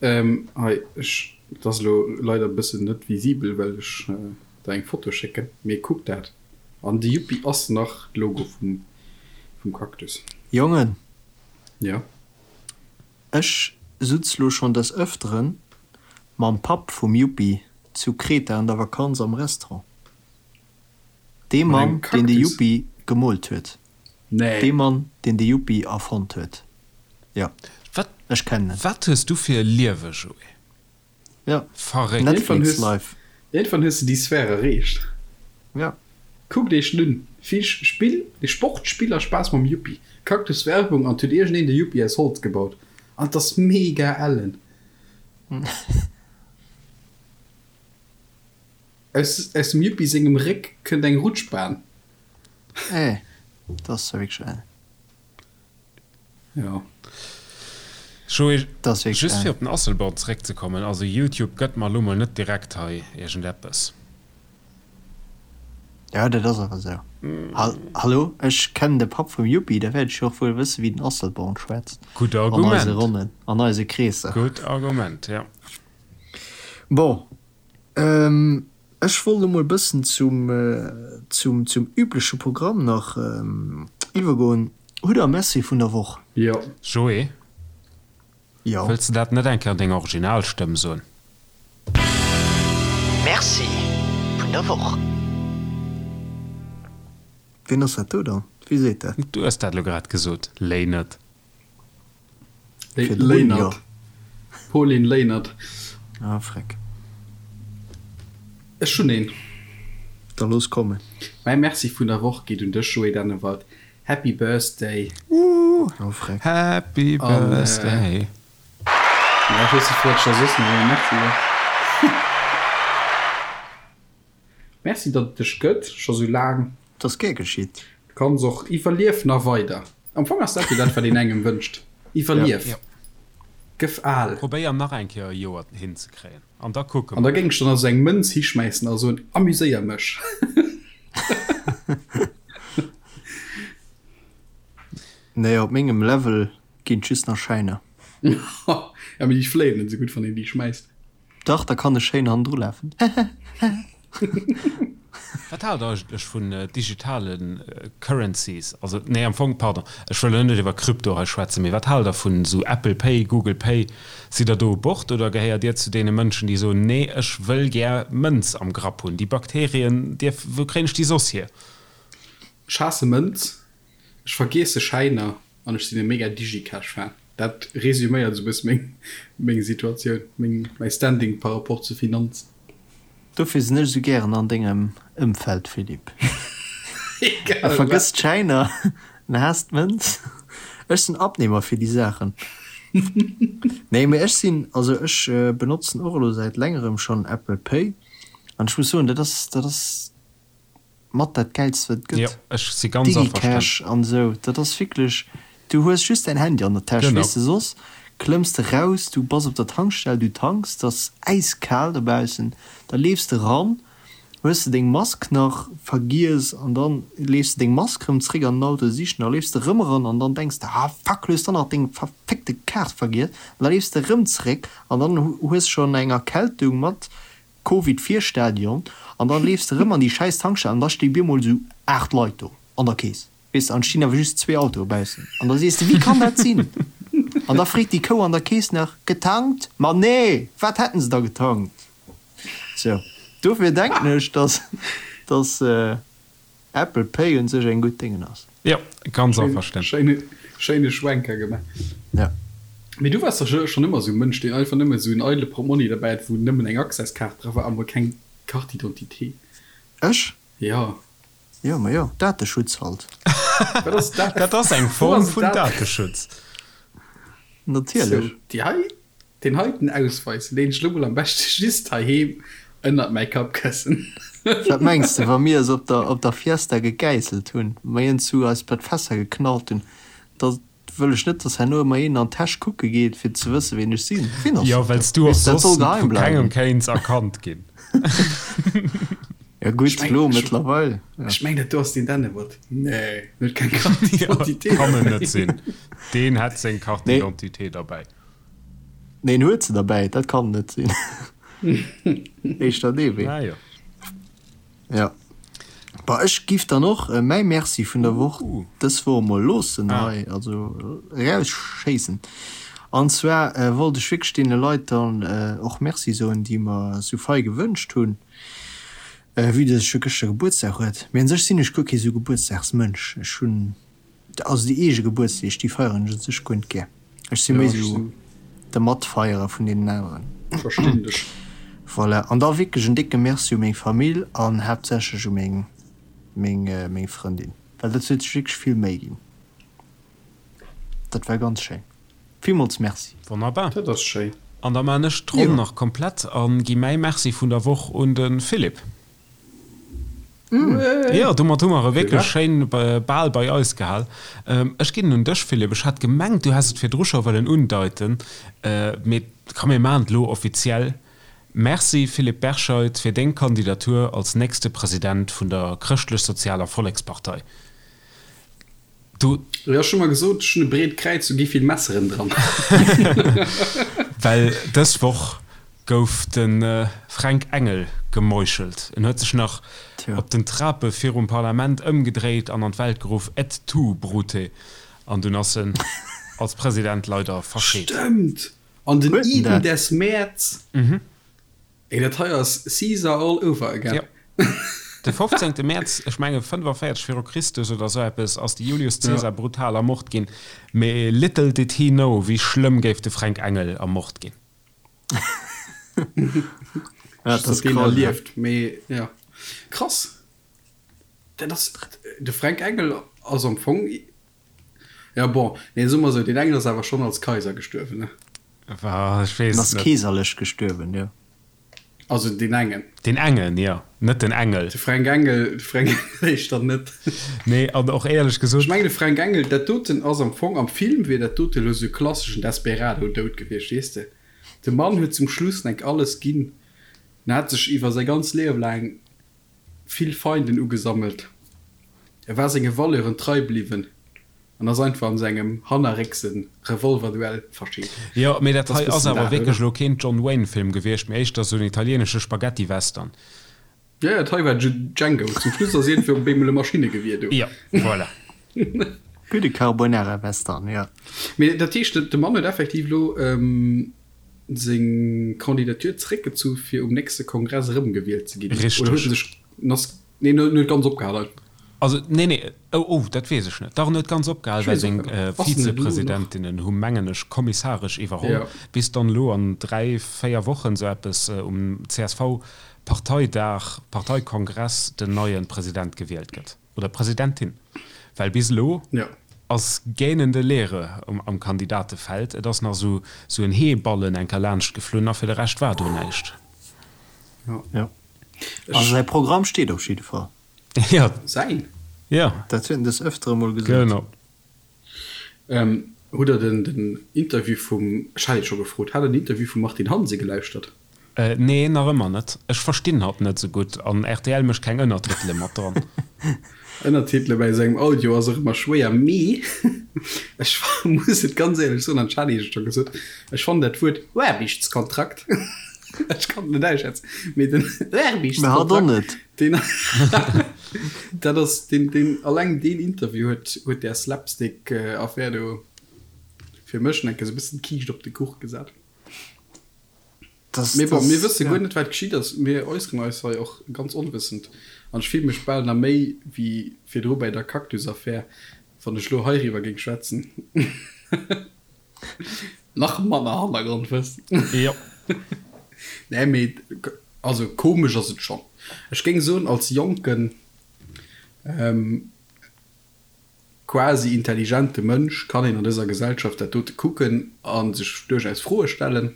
Hei, ech, et ass elo leider e bëssen net visibel, well ech der eng Foto schécken, mee kuck dat. An de Yuppi ass nach de Logo vum, vum Cactus. Jongen! Jo? Ech sutz lo schon des Öfteren mam Papp vum Yuppi zu Kreta an der Vakanz am Restaurant. Dee Mat engem Mann, deen de Cactus? Yuppi gemoolt huet. Nee. Dee Mann, deen de Yuppi erfonnt huet. Jo, Wat, ech kennen en. wat hues du fir e Liewe, Joé? Jo, Verréckt. Netflix life. Iergendwann hues de déi Sphär erreecht. Ja. Kuckt iech en un. Vill Spill, Sport, Spill a Spaass mam Yuppi. Cactus Werbung an 't huet iergendeen de Yuppi aus Holz gebaut. An 't ass mega ellen. Aus aus dem Yuppi sengem Réck kënnt eng Rutschbahn. Eh, dat ass zwar wierklech ellen. Jo. Joé, just fir op den Asselborn zeréckzekommen, also Youtube gëtt mer elo mol net direkt hei iergendeppes. Jo, dat ass awer esou. Hallo, ech kennen de Papp vum Yuppi, da wäert ech jo och wuel wësse wéi den Asselborn schwätzt. Gutt Argument. An eise Ronnen, an eise Kreesser. Gutt Argument, jo. Bon, Ech wollt emol e bëssen zum, zum, zum übleche Programm nach iwwergoen. Hutt der e Merci vun der Woch? Jo. Joé, Jo. wëlls de dat net eng Kéier an denger Originalstëmm soen? Merci vun der Woch. Ween ass dat do dann? Wie seet dat? Du hues dat elo grad gesot, Léinert. Léinert. Pauline Léinert. Ah, freck. Ech hunn een. Da looss kommen. Mäi Merci vun der Woch geet un dech, Joé Dennewald. Happy Birthday! Woo! Oh, freck. Happy Birthday! An, ech weess net, wou ech da soss nach ee Merci soll. Merci, datt et dech gëtt, scho sou laang. 't ass gär geschitt. Du kanns och iwwerlief nach weider. Am Fong ass dat jo dat, wat een engem wënscht, Iwwerlief, gëff al. Probéier nach eng Kéier e Joer hinzekréien an da kucke An da mer. géing ech der nach sou eng Mënz hischmäissen a soen, Amuséier mech. Nee, op mengem Level ginn et just nach Schäiner. Ja, mee déi fléien net sou gutt, wann een déi schmäisst. Dach, da kann ech schéin hannendru lafen. Wat haalt der eigentlech vun digitale Currencies? Also, nee, am Fong, pardon, ech wëll elo net iwwer Krypto hei schwätzen, mee wat haalt der vun esou Apple Pay, Google Pay? Sidd der do u Bord oder gehéiert Dir zu deene Mënschen, déi soen, nee, ech wëll gär Mënz am Grapp hunn, déi Bakterien dierf, wou kréien ech déi soss hier? Ech haasse Mënz, ech vergiesse Schäiner. An ech sinn e mega Digicash Fan. Dat resuméiert esou bësse meng meng Situatioun, meng mäi Standing par rapport zu Finanzen. Dofir sinn ech esou gären an dengem Ëmfeld, Philippe. Egal E wat. vergësst d'Schäiner, en haasst d'Mënz. Ech sinn Abnehmer fir déi Saachen. Nee, mee ech sinn, also ech benotzen och elo säit längerem schonn Apple Pay an ech muss soen, dat ass, dat ass mat dat gäilst wat et Jo, gëtt. ech si ganz averstanen. DigiCash an esou, dat ass wierklech, du hues just däin Handy an der Täsch, Genau. weess de, soss klëmms de raus, du bass op der Tankstell, du tanks, et ass äiskal dobaussen, da leefs de ran, hues de deng Mask nach vergiess an dann leefs de deng Mask rëm zréck an den Auto sichen, da leefs de rëm eran an dann denks de, ah fuck, du hues dann nach deng verfickte Kaart vergiess an da leefs de rëm zréck an dann hues schonn eng Erkältung mat Covid Virstadion an dann leefs de rëm an déi schäiss Tankstell an da sti bemol sou 8 Leit do an der Kees, weess de, an stinn awer just zwee Autoe baussen an da sees de, wéi kann dat sinn? An da freet déi Kou an der Kees nach, getankt? Ma nee, wat hätten se da getankt? Sou, dofir denken ech, dass, dass. Apple Pay un sech eng gutt Déngen ass. Jo, ganz averstanen. Schéine, schéine Schwenker gemaach. Ja. Mee du waars dach schonn ëmmer esou e Mënsch, deen einfach nëmme esou en eidele Portmonni derbäi hat, wou nëmmen eng Access-Kaart dra war a mol keng Carte d'identité. Ech? Jo. Jo, ma jo, Dateschutz halt. Wat ass dat? Dat ass eng Form vun Dateschutz. Natierlech. Sou, déi hei Deen heiten Ausweis leen ech lo mol am beschte just heiheem ënnert mäi Kappkëssen. Wat mengs de, wa mir es op der op der Fiesta gegäisselt hunn, mer een zu eis bei d'Fässer geknallt hunn, da wëll ech net, dass herno ëmmer een an d'Täsch kucke geet, fir ze wësse ween ech sinn. Ween ass Jo, dat well s do? du och Weess de, dat soss soll geheim vu kengem bleiwen. kéints erkannt ginn. Jo gutt, Ech meng, lo ech, mëttlerweil, jo. ech meng dat do ass deen Dennewert. Nee, en huet keng Carte Jo, d'identité kann en derbäi. net sinn. Deen hätt seng Carte Nee. d'identité derbäi. Neen huet se derbäi, dat kann net sinn. Éischter dee Wee. Ah jo. Ja. Bah ech giff dann och mäi Merci vun der Woch dës Woch emol loossen hei, also erausschéissen. An zwar wollt ech wierklech deene Leit dann och Merci soen, déi mer sou fei gewënscht hunn, vue dass ech jo gëschter Gebuertsdag huet. Mee un sech sinn ech guer kee sou Gebuertsdagsmënsch. Ech hunn Also déi eege Gebuertsdeeg, déi feieren ech un sech guer net gär. Ech si méi sou de Matfeierer vun deenen aneren. Verstinn dech. Voilà, an da wierklech en décke Merci u meng Famill an haaptsächlech u meng meng meng Frëndin, well dat huet sech wierklech vill Méi ginn. Dat war ganz schéin. Villmools Merci. Wonnerbar. Dat ass schéin. An da maan ech d'Ronn nach komplett an gi mäi Merci vun der Woch un de Philippe. Jo, domat hu mer e wierklech schéin Bal bei eis gehal. Ech ginn en un dech, Philippe. Ech hat gemengt, du häss et virdru scho wëllen undeiten, mee komm, mir maachen et elo offiziell. Merci, Philippe Berscheid, fir deng Kandidatur als nächste President vun der Chrëschtlech-Sozialer Vollekspartei. Du. Jo, ech hu mer gesot, ech hunn e breet Kräiz, do gi vill Messeren dran. Well dës Woch gouf de Fränk Engel gemeuchelt. En huet sech nach op den Trape virum Parlament ëmgedréit an an d'Welt geruff, Et tu, Brute! An dunn ass en als President leider verscheet. Stëmmt! An den Iden des Mäerz. Ey, dat hei ass Caesar all over again. Jo. De 15. Mäerz, ech menge 45 viru Christus oder sou eppes, ass de Julius Caesar brutal ermort ginn. Mee little did he know, wéi schlëmm géif de Fränk Engel ermort ginn. Ja, dat ass deen erlieft, mee ja. Krass. Dat ass, de Fränk Engel ass am Fong, ja bon, nee, soe mer esou, deen Engel ass awer schonn als Kaiser gestuerwen, ne? Wa, ech weess En ass net. keeserlech gestuerwen, jo. Also deen engen. Deen engen, jo, net den Engel. De Fränk Engel, de Fränk Engel éischter net. Nee, an och éierlech gesot. Ech mengen, de Fränk Engel, dat doten ass am Fong, am Film wier dat dote elo esou e klasseschen Desperado-Doud gewiescht, weess de. De Mann huet zum Schluss enk alles ginn, en hat sech iwwer säi ganz Liewe laang vill Feinden ugesammelt. E war senge Valeuren trei bliwwen an ass einfach an sengem hannerréckse Revolverduell verscheet. Jo, mee dat hei ass awer wierklech elo keen John Wayne Film gewiescht, mee éischter sou en italienesche Spaghetti-Western. Jo, jo, dat hei war Django. Zum Schluss ass iergendwéi op eemol e Maschinnegewier do. Jo, voilà. Gudde Carbonara-Western, jo. Mee dat heescht, de Mann huet effektiv elo seng Candidature zeréckgezu fir um nächste Kongress erëmgewielt ze ginn? Richteg. Oder huet en sech, en ass, nee, en huet ganz opgehal einfach. Also, nee, nee, oh, oh, dat weess ech net. Dach, en huet ganz opgehal, well seng Vizepresidentinnen hu, mengen ech, kommissaresch iwwerholl, bis dann elo an 3, 4 Wochen, esou eppes, um CSV-Parteidag, Parteikongress den neie President gewielt gëtt. Oder Presidentin. Well bis elo ass gähnende Leere am Kandidatefeld. Et ass nach esou en Heeballen enker laanscht geflunn a fir de Rescht war do näischt. Jo. Also säi Programm steet op jidde Fall. Jo. Säin? Jo. Dat huet en des Ëftere mol gesot. Genau. Hutt der den Interview vum, ech hat Iech scho gefrot, hat der den Interview vum Martine Hansen gelauschtert? Nee, nach ëmmer net. Ech verstinn hatt net sou gutt an rtl mécht keng Ënnertitele mat dran. Ënnertitele bäi sengem Audio ass och ëmmer schwéier, mee ech muss et ganz éierlech soen, an ech hat Iech et scho gesot, ech fannen dat Wuert Aarbechtskontrakt, ech kann et net ausschwätzen, mee den Aarbechtskontrakt, deen, dat ass deen, deen, alleng deen Interview huet, huet där Slapstick-Affär do fir mech enke sou e bëssen d'Kiischt op de Kuch gesat. Das, Mee bon, das, mir wësse ja. guer net, wat geschitt ass. Mir äusseren eis hei och ganz onwëssend. An ech fille mech bal nach méi wéi virdru bäi der Cactus-Affär, wann ech elo heiriwwer géing schwätzen. Nach manner Hannergrondwëssen. Jo. Nee, mee also komesch ass et schonn. Ech géing soen, als jonken, quasi intelligente Mënsch kann een an dëser Gesellschaft dat dote kucken a sech duerchaus Froe stellen.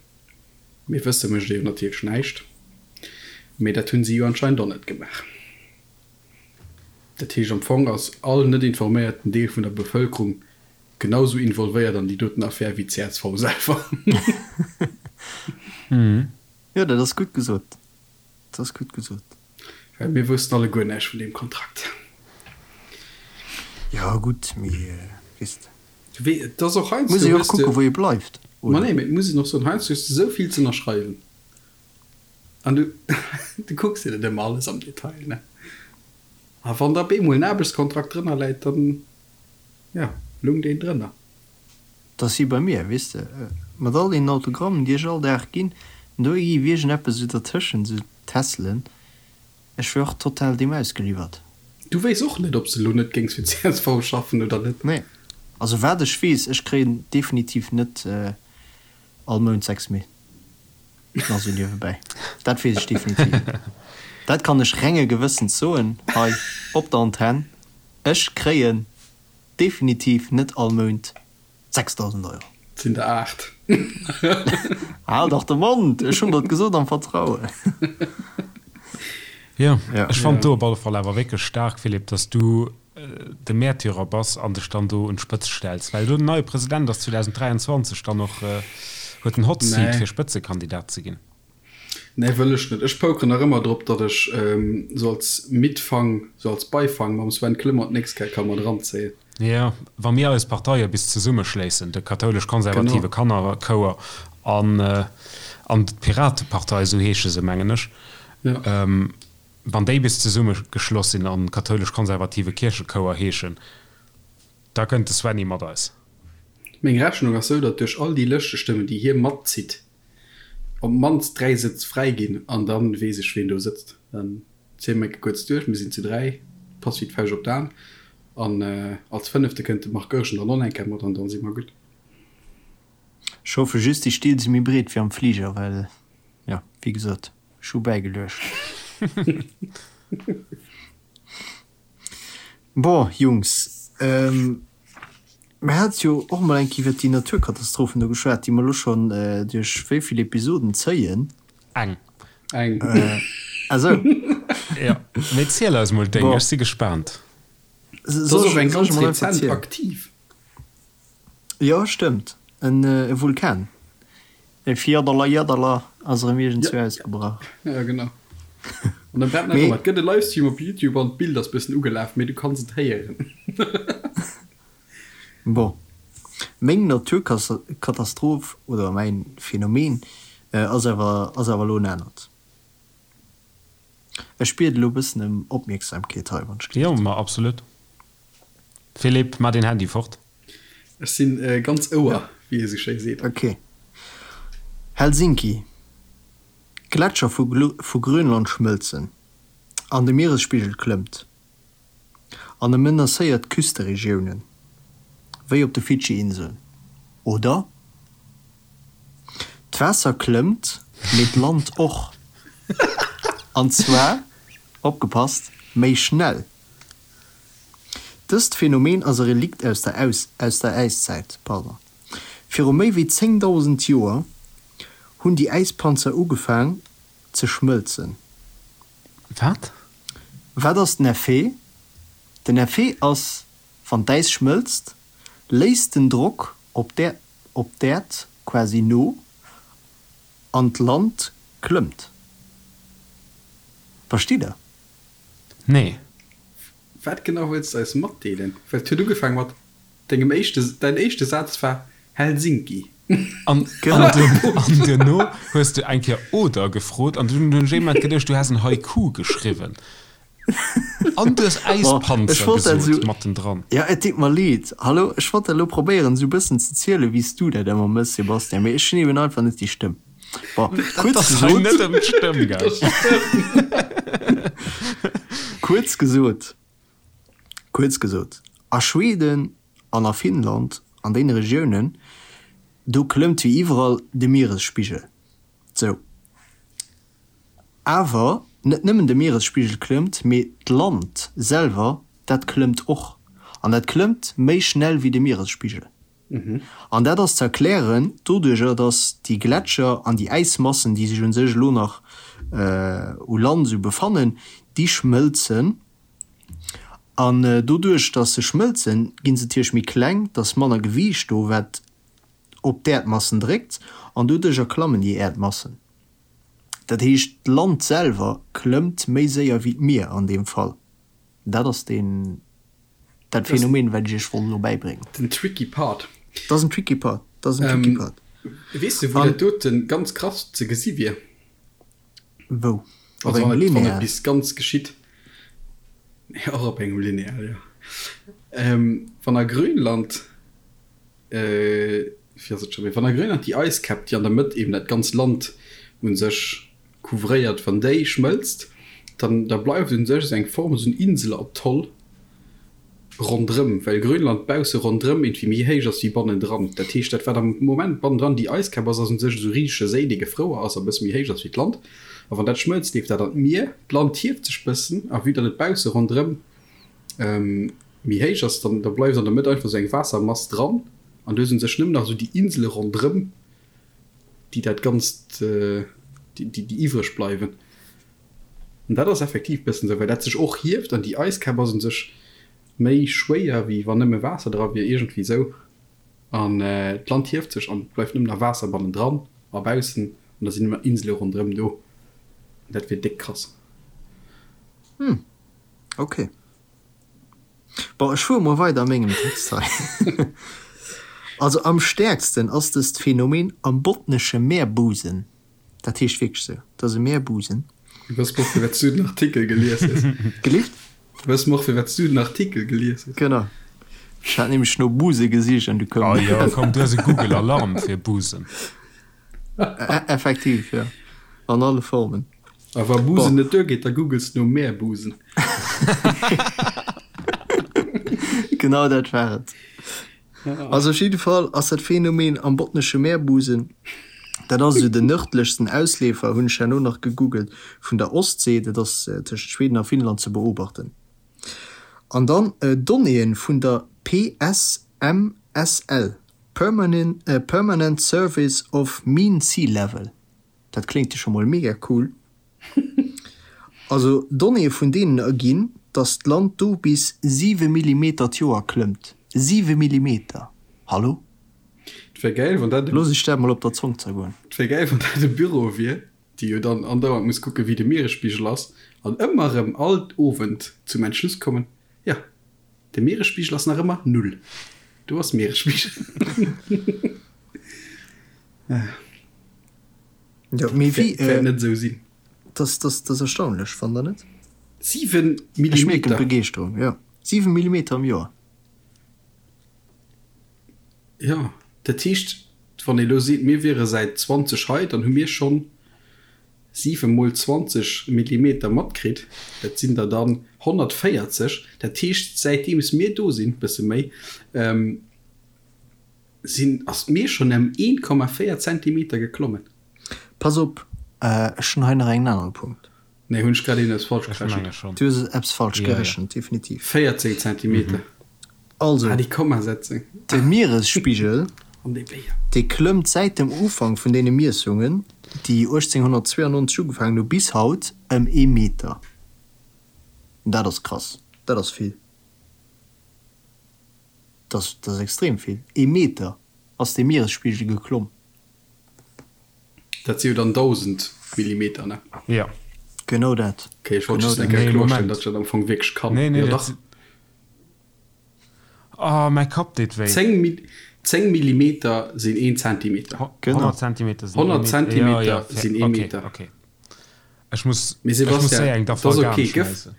Mee wësse mécht ee jo natierlech näischt. Mee dat hunn si jo anscheinend och net gemaach. Dat heescht am Fong ass all net informéierten Deel vun der Bevëlkerung genau sou involvéiert an déi doten Affär wéi d'CSV selwer. Jo, dat ass gutt gesot. Dat ass gutt gesot. Well mir woussten alleguer näischt vun deem Kontrakt. Jo gutt, mee weess de. Wee, et ass och heiansdo, Muss ee jo och hues de. kucken, wou ee bleift, Ma oder? nee, mee et muss een och soen, heiansdo hues de esou vill ze ënnerschreiwen an du, du kucks dir net ëmmer alles am Detail, ne? A wann da op eemol en Aarbechtskontrakt drënner läit, dann, jo, lung deen drënner. 't ass wéi bei mir, weess de, mat all deenen Autogrammen, déi ech all Dag ginn, an do gi iergendeppes esou dertëschent, esou Tässelen. Ech wier och total deem ausgeliwwert. Du wéiss och net, ob s de elo net géings fir csv schaffen oder net? Nee. Also wat ech weess, ech kréien definitiv net all Mount 6 Mil. Nach sou niewebäi. Dat weess ech definitiv. Dat kann ech renge Gewëssens soen hei op der Antenn, Ech kréien definitiv net all Mount 6.000 Euro. Et sinn der 8. Hal dach de Mond! Ech hunn der et gesot am Vertrauen. Jo, ech fannt do op alle Fall awer wierklech staark, Philippe, dass du de Märtyrer bass an dech dann do un d'Spëtzt stells, well elo den neie President ass 2023 dann och, huet den Hot Seat fir Spëtzekandidat ze ginn. Nee, wëll ech net. Ech pokeren nach ëmmer drop, datt ech sou als Mitfang, sou als Beifang mam Sven Clement d'nächst Kéier ka mat eranzéien. Jo, wa mir eis Parteie bis zesummeschléissen, de kathoulesch-konservative Kannerchouer an an d'Piratepartei, esou heesche se, mengen ech, wann déi bis zesummegeschloss sinn an kathoulesch-konservative Kierchechouer heeschen, da kënnt de Svenny mat eis. Meng Rechnung ass sou, datt duerch all déi Lëschtestëmmen, déi hie matzitt, op d'mannst 3 Sëtz fräi ginn an dann weess ech ween do sëtzt. Dann ziele mer enke kuerz duerch, mir sinn zu 3, passt wéi d'Fauscht op d'An an als fënnefte kënnt de Marc Goergen dann och nach eng Kéier mat an dann si mer gutt. Ech hoffe just déi Still si méi breet wéi am Fliger, well jo wéi gesot ech hu bäigeluecht. Bon Jungs, mir hate jo och mol eng Kéier iwwert déi Naturkatastrophen do geschwat, déi mer elo schonn duerch wéi vill Episoden zéien. Eng. Eng. Ah sou. Jo, mee ziel eis mol deng, ech si gespaant. Soll ech eng ganz rezent aktiv? Jo, stëmmt, en Vulkan. E Fjaddala-Jaddala ass erëm iergendzwou ausgebrach. Ja, genau. An e brennt nach ëmmer. Et gëtt e Livestream op Youtube an d'Bild ass bëssen ugelaf, mee du kanns et héieren. Bon, meng Naturkatastroph oder mäin Phänomen ass awer ass awer elo en anert. Ech bied elo bëssen ëm Opmierksamkeet hei, wann ech Jo, ma absolut. Philippe, maa deen Handy fort. Ech sinn ganz Ouer, wéi ee sou schéi seet. Ok. Helsinki, D'Gletscher vu Grönland schmëlzen an de Mieresspigel klëmmt. An e menacéiert Küsteregiounen, wéi op de Fidschi-Inseln. Oder? D'Waasser klëmmt, mee d'Land och. An zwar, opgepasst, méi schnell. Dëst Phänomen ass e Relikt aus der aus der Äiszäit. Pardon. Viru méi wéi 10.000 Joer hunn déi Äispanzer ugefaang ze schmëlzen. Wat? Wat ass den Effet? Den Effet ass, wann d'Äis schmëlzt, léisst den Drock op op d'Äerd quasi no an d'Land klëmmt. Verstitt der? Nee. Wat genau wëlls de eis matdeelen? Well et huet ugefaang mat dengem éischte, däin éischte Saz war Helsinki. An, an duerno hues de eng Kéier oder gefrot an dunn hunn ech ee Moment geduecht, du häss en Haiku geschriwwen. An du hues Äispanzer gesot mattendran. Jo, et deet mer leed. Hallo, ech wollt dat elo probéieren esou e bëssen ze zielen, wéi s du dat ëmmer mëss, Sebastian, mee ech hunn eben einfach net déi Stëmm. Bon, kuerz gesot. Net ëm d'Stëmm gaang. Kuerz gesot, kuerz gesot, a Schweden an a Finnland, an deene Regiounen, do klëmmt wéi iwwerall de Mieresspigel. Sou. Awer net nëmmen de Mieresspigel klëmmt, mee d'Land selwer, dat klëmmt och. An dat klëmmt méi schnell wéi de Mieresspigel. An dat ass ze erklären doduerjer, datt déi Gletscher an déi Äismassen, déi sech un sech elo nach u Land esou befannen, déi schmëlzen. An doduerch, datt se schmëlzen, gi se natierlech méi kleng, et ass manner Gewiicht do, wat op d'Äerdmassen dréckt, an doduerjer klammen déi Äerdmassen. Dat heescht, d'Land selwer klëmmt méi séier wéi d'Mier an deem Fall. Dat ass deen, dat Phänomen, wat ech iech wollt elo bäibréngen. Den tricky part. Dat ass en tricky part, dat ass en tricky part. Weess de, wou dat doten ganz krass ze gesi wier? Wou? Op engem Lineal? Wann et bis ganz geschitt. Och op engem Lineal, jo. Wann a Grönland, wéi ass et scho méi, wann a Grönland déi Eiskäpp, déi an der Mëtt eben dat ganz Land u sech couvréiert, wann déi schmëlzt, dann da bleift un sech esou eng Form, esou en Inselatoll. Ronderëm, well Grönland bausse ronderëm iergendwéi méi héich ass wéi bannendran. Dat heescht, dat wat am Moment bannendran déi Eiskap ass, ass u sech esou e risege Séi, dee gefrouer ass a bësse méi héich ass wéi d'Land. A wann dat schmëlzt, leeft dat an d'Mier. D'Land hieft sech bëssen a vue datt et bausse ronderëm méi héich ass, dann da bleift an der Mëtt einfach esou eng Waassermass dran an du hues u sech nëmmen nach esou déi Insele ronderëm, déi dat Ganzt, déi déi iwwreg bleiwen. An dat ass effektiv bëssen esou, well dat sech och hieft an déi Eiskap ass un sech méi schwéier wéi wann nëmme Waasser dra wier, iergendwéi esou. An d'Land hieft sech an et bleift nëmmen nach Waasser bannendran a baussen an da sinn ëmmer Insele ronderëm do. An dat wier déck krass. Hm, ok. Bon, ech fuere mol weider a mengem Text hei. Also am stäerksten ass dëst Phänomen am Botnesche Meerbusen. Dat heescht wierklech sou. Dat ass e Meerbusen. Wëss mer och, firwat s du den Artikel gelies hues. Gelift? Wëss mer och, firwat s du den Artikel gelies hues. Genau. Ech hat nämlech no Buse gesicht an du koum. Oh jo, komm, du hues e Google Alarm fir Busen. Effektiv, jo. An alle Formen. A wa Busen net duergeet, da googles de no Meerbusen. Genau dat war et. Also op jidde Fall ass dat Phänomen am Botnesche Meerbusen, dat ass esou den nërdlechsten Ausleefer, hunn ech herno nach gegoogelt, vun der Ostsee, dat ass tëschent Schweden a Finnland ze beobachten. An dann Donnéeën vun der PSMSL, Permanent Service of Mean Sea Level, dat kléngt jo scho mol mega cool. Also Donnéeë vun deenen erginn, datt d'Land do bis 7 Millimeter d'Joer klëmmt. 7 Millimeter! Hallo? Et wär gäil, wann dat e. Looss ech dat mol op der Zong zergoen. Et wär gäil, wann dat e Büro wier, déi jo dann andauernd muss kucken, wéi de Mieresspigel ass, an ëmmer erëm all Owend zum Entschluss kommen, Jo, de Mieresspigel ass nach ëmmer null. Do ass Mieresspigel. Jo, mee wéi. Wäert net esou sinn. Das, das, das erstaunlech, fannt der net? 7 Millimeter! Ech mierken d'Begeeschterung, jo. 7 Millimeter am Joer. Jo, dat heescht, wann ee lo seet, mir wiere säit 20 hei, dann hu mir schonn 7 mol 20 Millimeter matkritt. Dat sinn der dann 140. Dat heescht, säitdeems mir do sinn, bësse méi, Sinn, ass d'Mier schonn ëm 1,4 Zentimeter geklommen. Pass op, ech hunn hei nach engem anere Punkt. Nee, hunn ech grad een eppes falsch gerechent? Du hues eppes falsch gerechent, definitiv. 14 Zentimeter. Also, Ah, déi Kommasetzung. de Mieresspigel, An dee Béier. dee klëmmt säit dem Ufank vun deene Miessungen, déi 1892 ugefaangen hu, bis haut ëm ee Meter. Dat ass krass, dat ass vill. Dat ass extrem vill. Ee Meter ass de Mieresspigel geklomm. Dat si jo dann 1.000 Millimeter, ne? Jo. Genau dat. Ok, ech wollt just eng Kéier kloerstellen, datt ech dat am Fong wierklech kann. Nee, nee, dat. Oh, mäi Kapp deet wéi. 10 Millimeter sinn een Zentimeter. Genau. 100 Zentimeter sinn ee Meter. 100 Zentimeter sinn ee Meter. Ok, ok. Ech muss, ech muss séier eng Dafalgan schmeissen.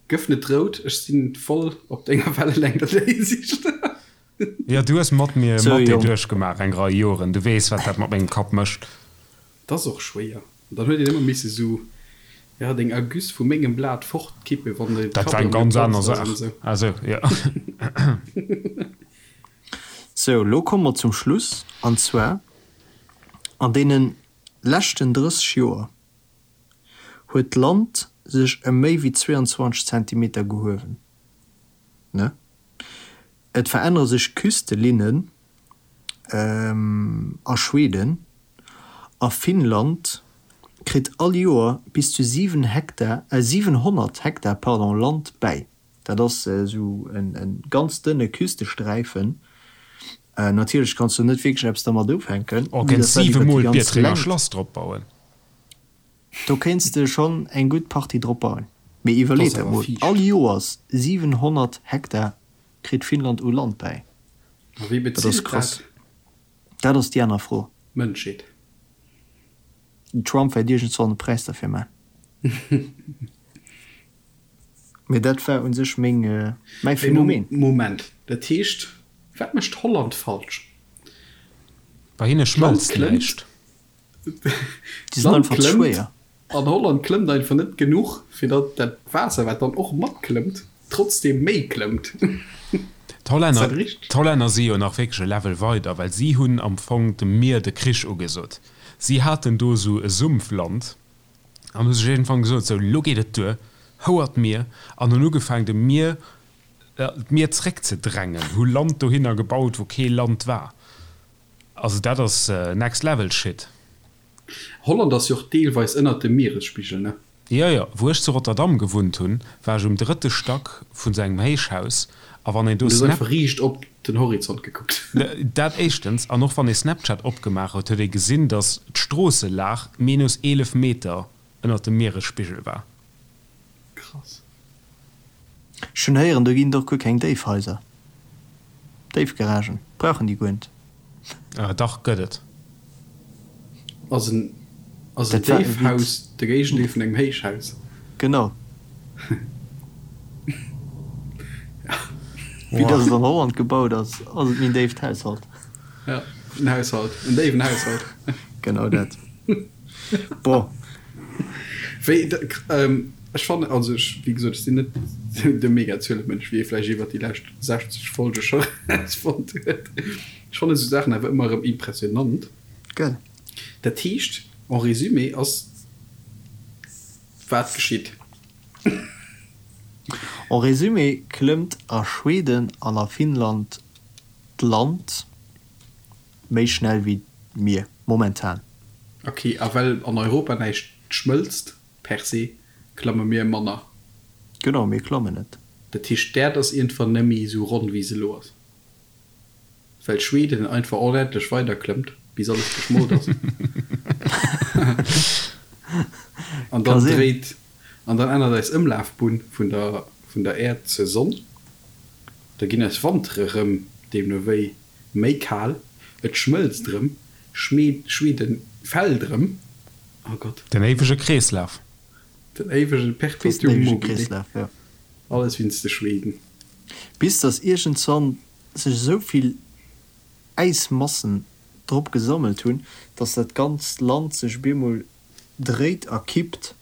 Gëff net rout, ech sinn voll op denger Wellelängt an der Hinsicht. Jo, du hues mat mir Mathé duerchgemaach eng Rei Joren, du weess wat dat mat mengem Kapp mécht. 't ass och schwéier, an dann huet een ëmmer misse sou, ja, deng Ergüss vu mengem Blat fortkippen, wann de Dat war eng ganz aner Saach. Ah sou, jo. Sou, lo komme mer zum Schluss, an zwar an deene leschten 30 Joer. huet d'Land sech ëm méi wéi 22 Zentimeter gehuewen. Ne? Et verännere sech Küstelinnen a Schweden a Finnland kritt all Joer bis zu 7 Hektar, 700 Hektar, pardon, Land bäi. Dat ass esou e ganz dënne Küstesträifen. Natierlech kanns du net wierklech eppes dermat ufänken. Oh, kéints 7 mol d'Biertrenger Schlass drop bauen. Do kéints de schonn eng gutt Partie drop bauen. Mee iwwerleet dat mol, all Joers 700 Hektar kritt Finnland u Land bäi. A wie Dat ass bezilt krass. dat? Dat ass déi aner Fro. D'Mënschheet. Den Trump wäert iergendswann e Präis derfir man. Mee dat war un sech meng, mäi Phänomen. Moment, dat heescht, wat mécht Holland falsch? Bei hinne schmëlzt näischt. Déi sinn einfach ze schwéier. An Holland klëmmt einfach net genuch, fir datt dat Waasser, wat dann och matklëmmt. trotzdem méi klëmmt. D'Hollänner, d'Hollänner si jo nach wierklech e Level weider, well si hunn am Fong dem Mier de Krich ugesot. Si haten do esou e Sumpfland an hu sech iergendwann gesot, sou, elo geet et duer, houer d'Mier, an hunn ugefaangen dem Mier, d'Mier zréckzedrängen, hu Land dohinner gebaut, wou kee Land war. Also dat ass next level shit. Holland ass jo och deelweis ënnert dem Mieresspigel, ne? Jo, jo. Wou ech zu Rotterdam gewunnt hunn, war ech um drëtte Stack vun sou engem Héichhaus a wann een do Du hues Snap. einfach riicht op den Horizont gekuckt. Dat éischtens, an och wann ee Snapchat opgemaach huet, huet ee gesinn, dass d'Stroosselag minus 11 Meter ënnert dem Mieresspigel war. Krass. Ech hunn héieren, do ginn et och guer keng Déifhaiser, Déifgaragen brauchen déi guer net. Dach, gëtt et. Ass en ass en Déifhaus de Géigendeel vun engem Héichhaus? Genau. Wéi dass et an Holland gebaut ass, ass et méi en déift Haushalt. Ja, en Haushalt, en déiwen Haushalt. Genau dat. Bon. Wéi, ech fannen, also ech, wéi gesot, ech sinn net de Mega-Zuelemënsch, wéi ee vläicht iwwert déi lescht 60 Folge scho erausfonnt huet. Ech fannen esou Saachen awer ëmmer erëm impressionant. Gell. Dat heescht, en résumé ass wat geschitt? En résumé klëmmt a Schweden an a Finnland d'Land méi schnell wéi d'Mier, momentan. Ok, a well an Europa näischt schmëlzt per se, klamme mir manner? Genau, mir klammen net. Dat heescht d'Äerd ass iergendwann nemmi esou ronn wéi se elo ass? Well Schweden einfach onendlech weider klëmmt bis alles geschmolt ass an dann dréit an dann ännert eis Ëmlafbunn vun der vun der Äerd zur Sonn. Da ginn eis Wantere rëm deemno wéi méi kal, et schmëlzt rëm, Schweden fält rëm, oh Gott. Den éiwege Kreeslaf. Den éiwege Perpetuum mobile. Alles wéinst de Schweden. Bis dass iergendzwann sech esou vill Äismassen drop gesammelt hunn, dass dat ganzt Land sech op eemol dréit a kippt.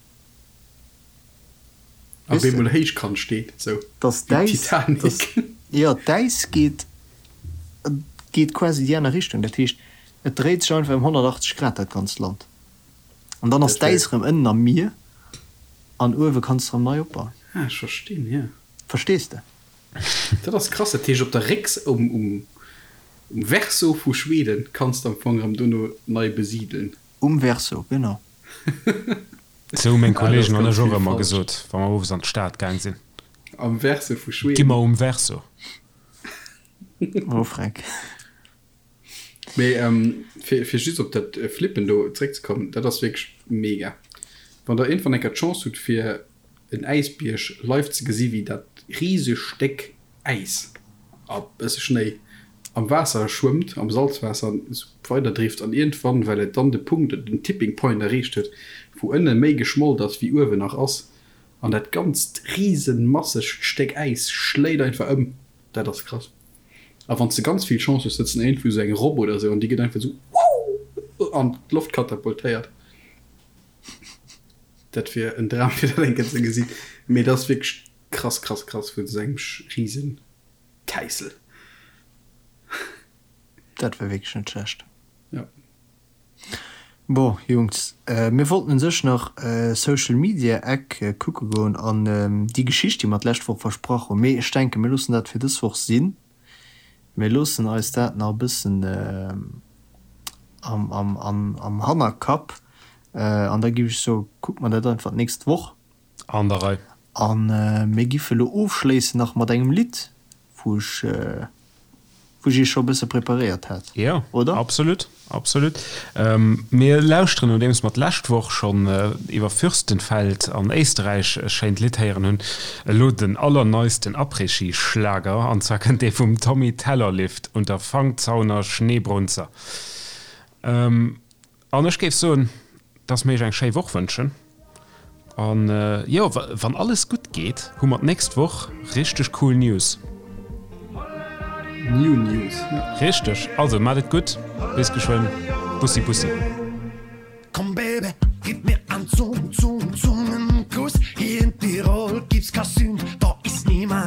A op eemol héichkant steet, esou wéi d'Titanic. Jo, d'Äis geet geet quasi déi aner Richtung. Dat heescht, et dréit sech einfach ëm 180 Grad, dat ganzt Land. An dann ass d'Äis erëm ënnen am Mier an uewe kanns de erëm nei opbauen. Ah, ech verstinn, jo. Verstees de? Dat ass krass, dat heescht op der Récks um um Verso vu Schweden kanns de am Fong erëm dono nei besideln. Um Verso, genau. Sou hu meng Kollegen an ech och ëmmer gesot, wa mer owes an d'Stad gaang sinn. Am Verso vu Schweden. Gi mer um Verso. Oh Freck. Mee fir fir just op dat Flippen do zréckzekommen, dat ass wierklech mega. Wann der iergendwann eng Kéier d'Chance hutt fir en Äisbierg live ze gesi wéi dat riseg Stéck Äis a bësse Schnéi am Waasser schwëmmt, am Salzwaasser an esou weider drift an iergendwann, well et dann de Punkt, den Tipping Point erreecht huet, wou ënne méi geschmolt ass wéi uewen nach ass an dat ganzt riesenmassegt Stéck Äis schléit einfach ëm. Dat ass krass. A wann s de ganz vill Chance hues, sëtzen iergendwou esou eng Robb oder esou an déi gëtt einfach esou wouh an d'Loft katapultéiert. Dat wier en Dram fir dat eng Kéier ze gesinn. Mee dat ass wierklech krass, krass, krass vun esou engem riesen Täissel. Dat war wierklech net schlecht. Jo. Bon Jungs, mir wollten un sech nach Social Media Eck kucke goen an déi Geschicht déi mer d'lescht Woch versprach hunn, mee ech denken mir loossen dat fir dës Woch sinn. Mir loossen eis dat nach e bëssen am Hannerkapp an da giff ech soe kucke mer dat einfach d'nächst Woch. An der Rei. A mir giffe lo ofschléissen nach mat engem Lidd, wou ech wou ech iech scho e bësse preparéiert hat, Jo, oder? absolut, absolut. Mir lauschteren, nodeems mer d'lescht Woch schonn iwwer Fürstenfeld an Éisterräich e schéint Lidd héieren hunn, elo den allerneisten Après-Ski-Schlager, an zwar kënnt dee vum Tommy Tellerlift unter Fangzauner Schneebrunzer. An ech géif soen, dass mir iech eng schéi Woch wënschen. An jo, wann alles gutt geet, hu mer d'nächst Woch richteg cool News. New News, jo. Richteg. Also, maacht et gutt, bis geschwënn. Bussi bussi. Komm Baby, gib mir an Zung, Zung, Zungenkuss Hier in Tirol gibt's ka Sünd, da ist niemand.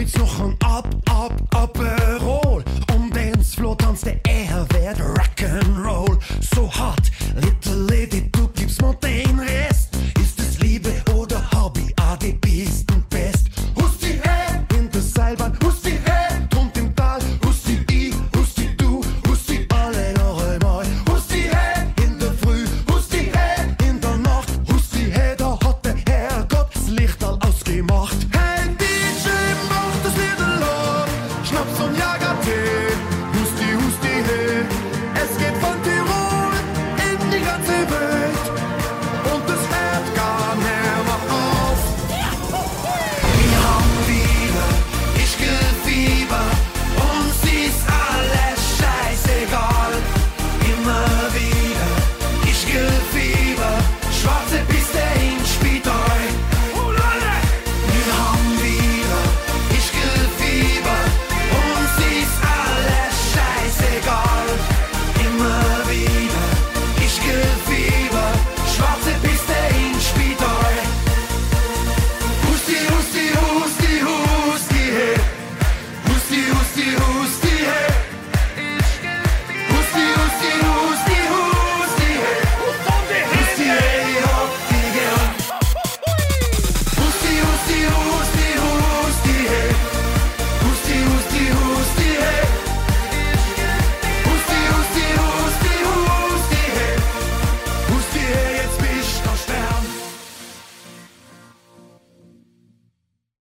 Spritz noch en ab.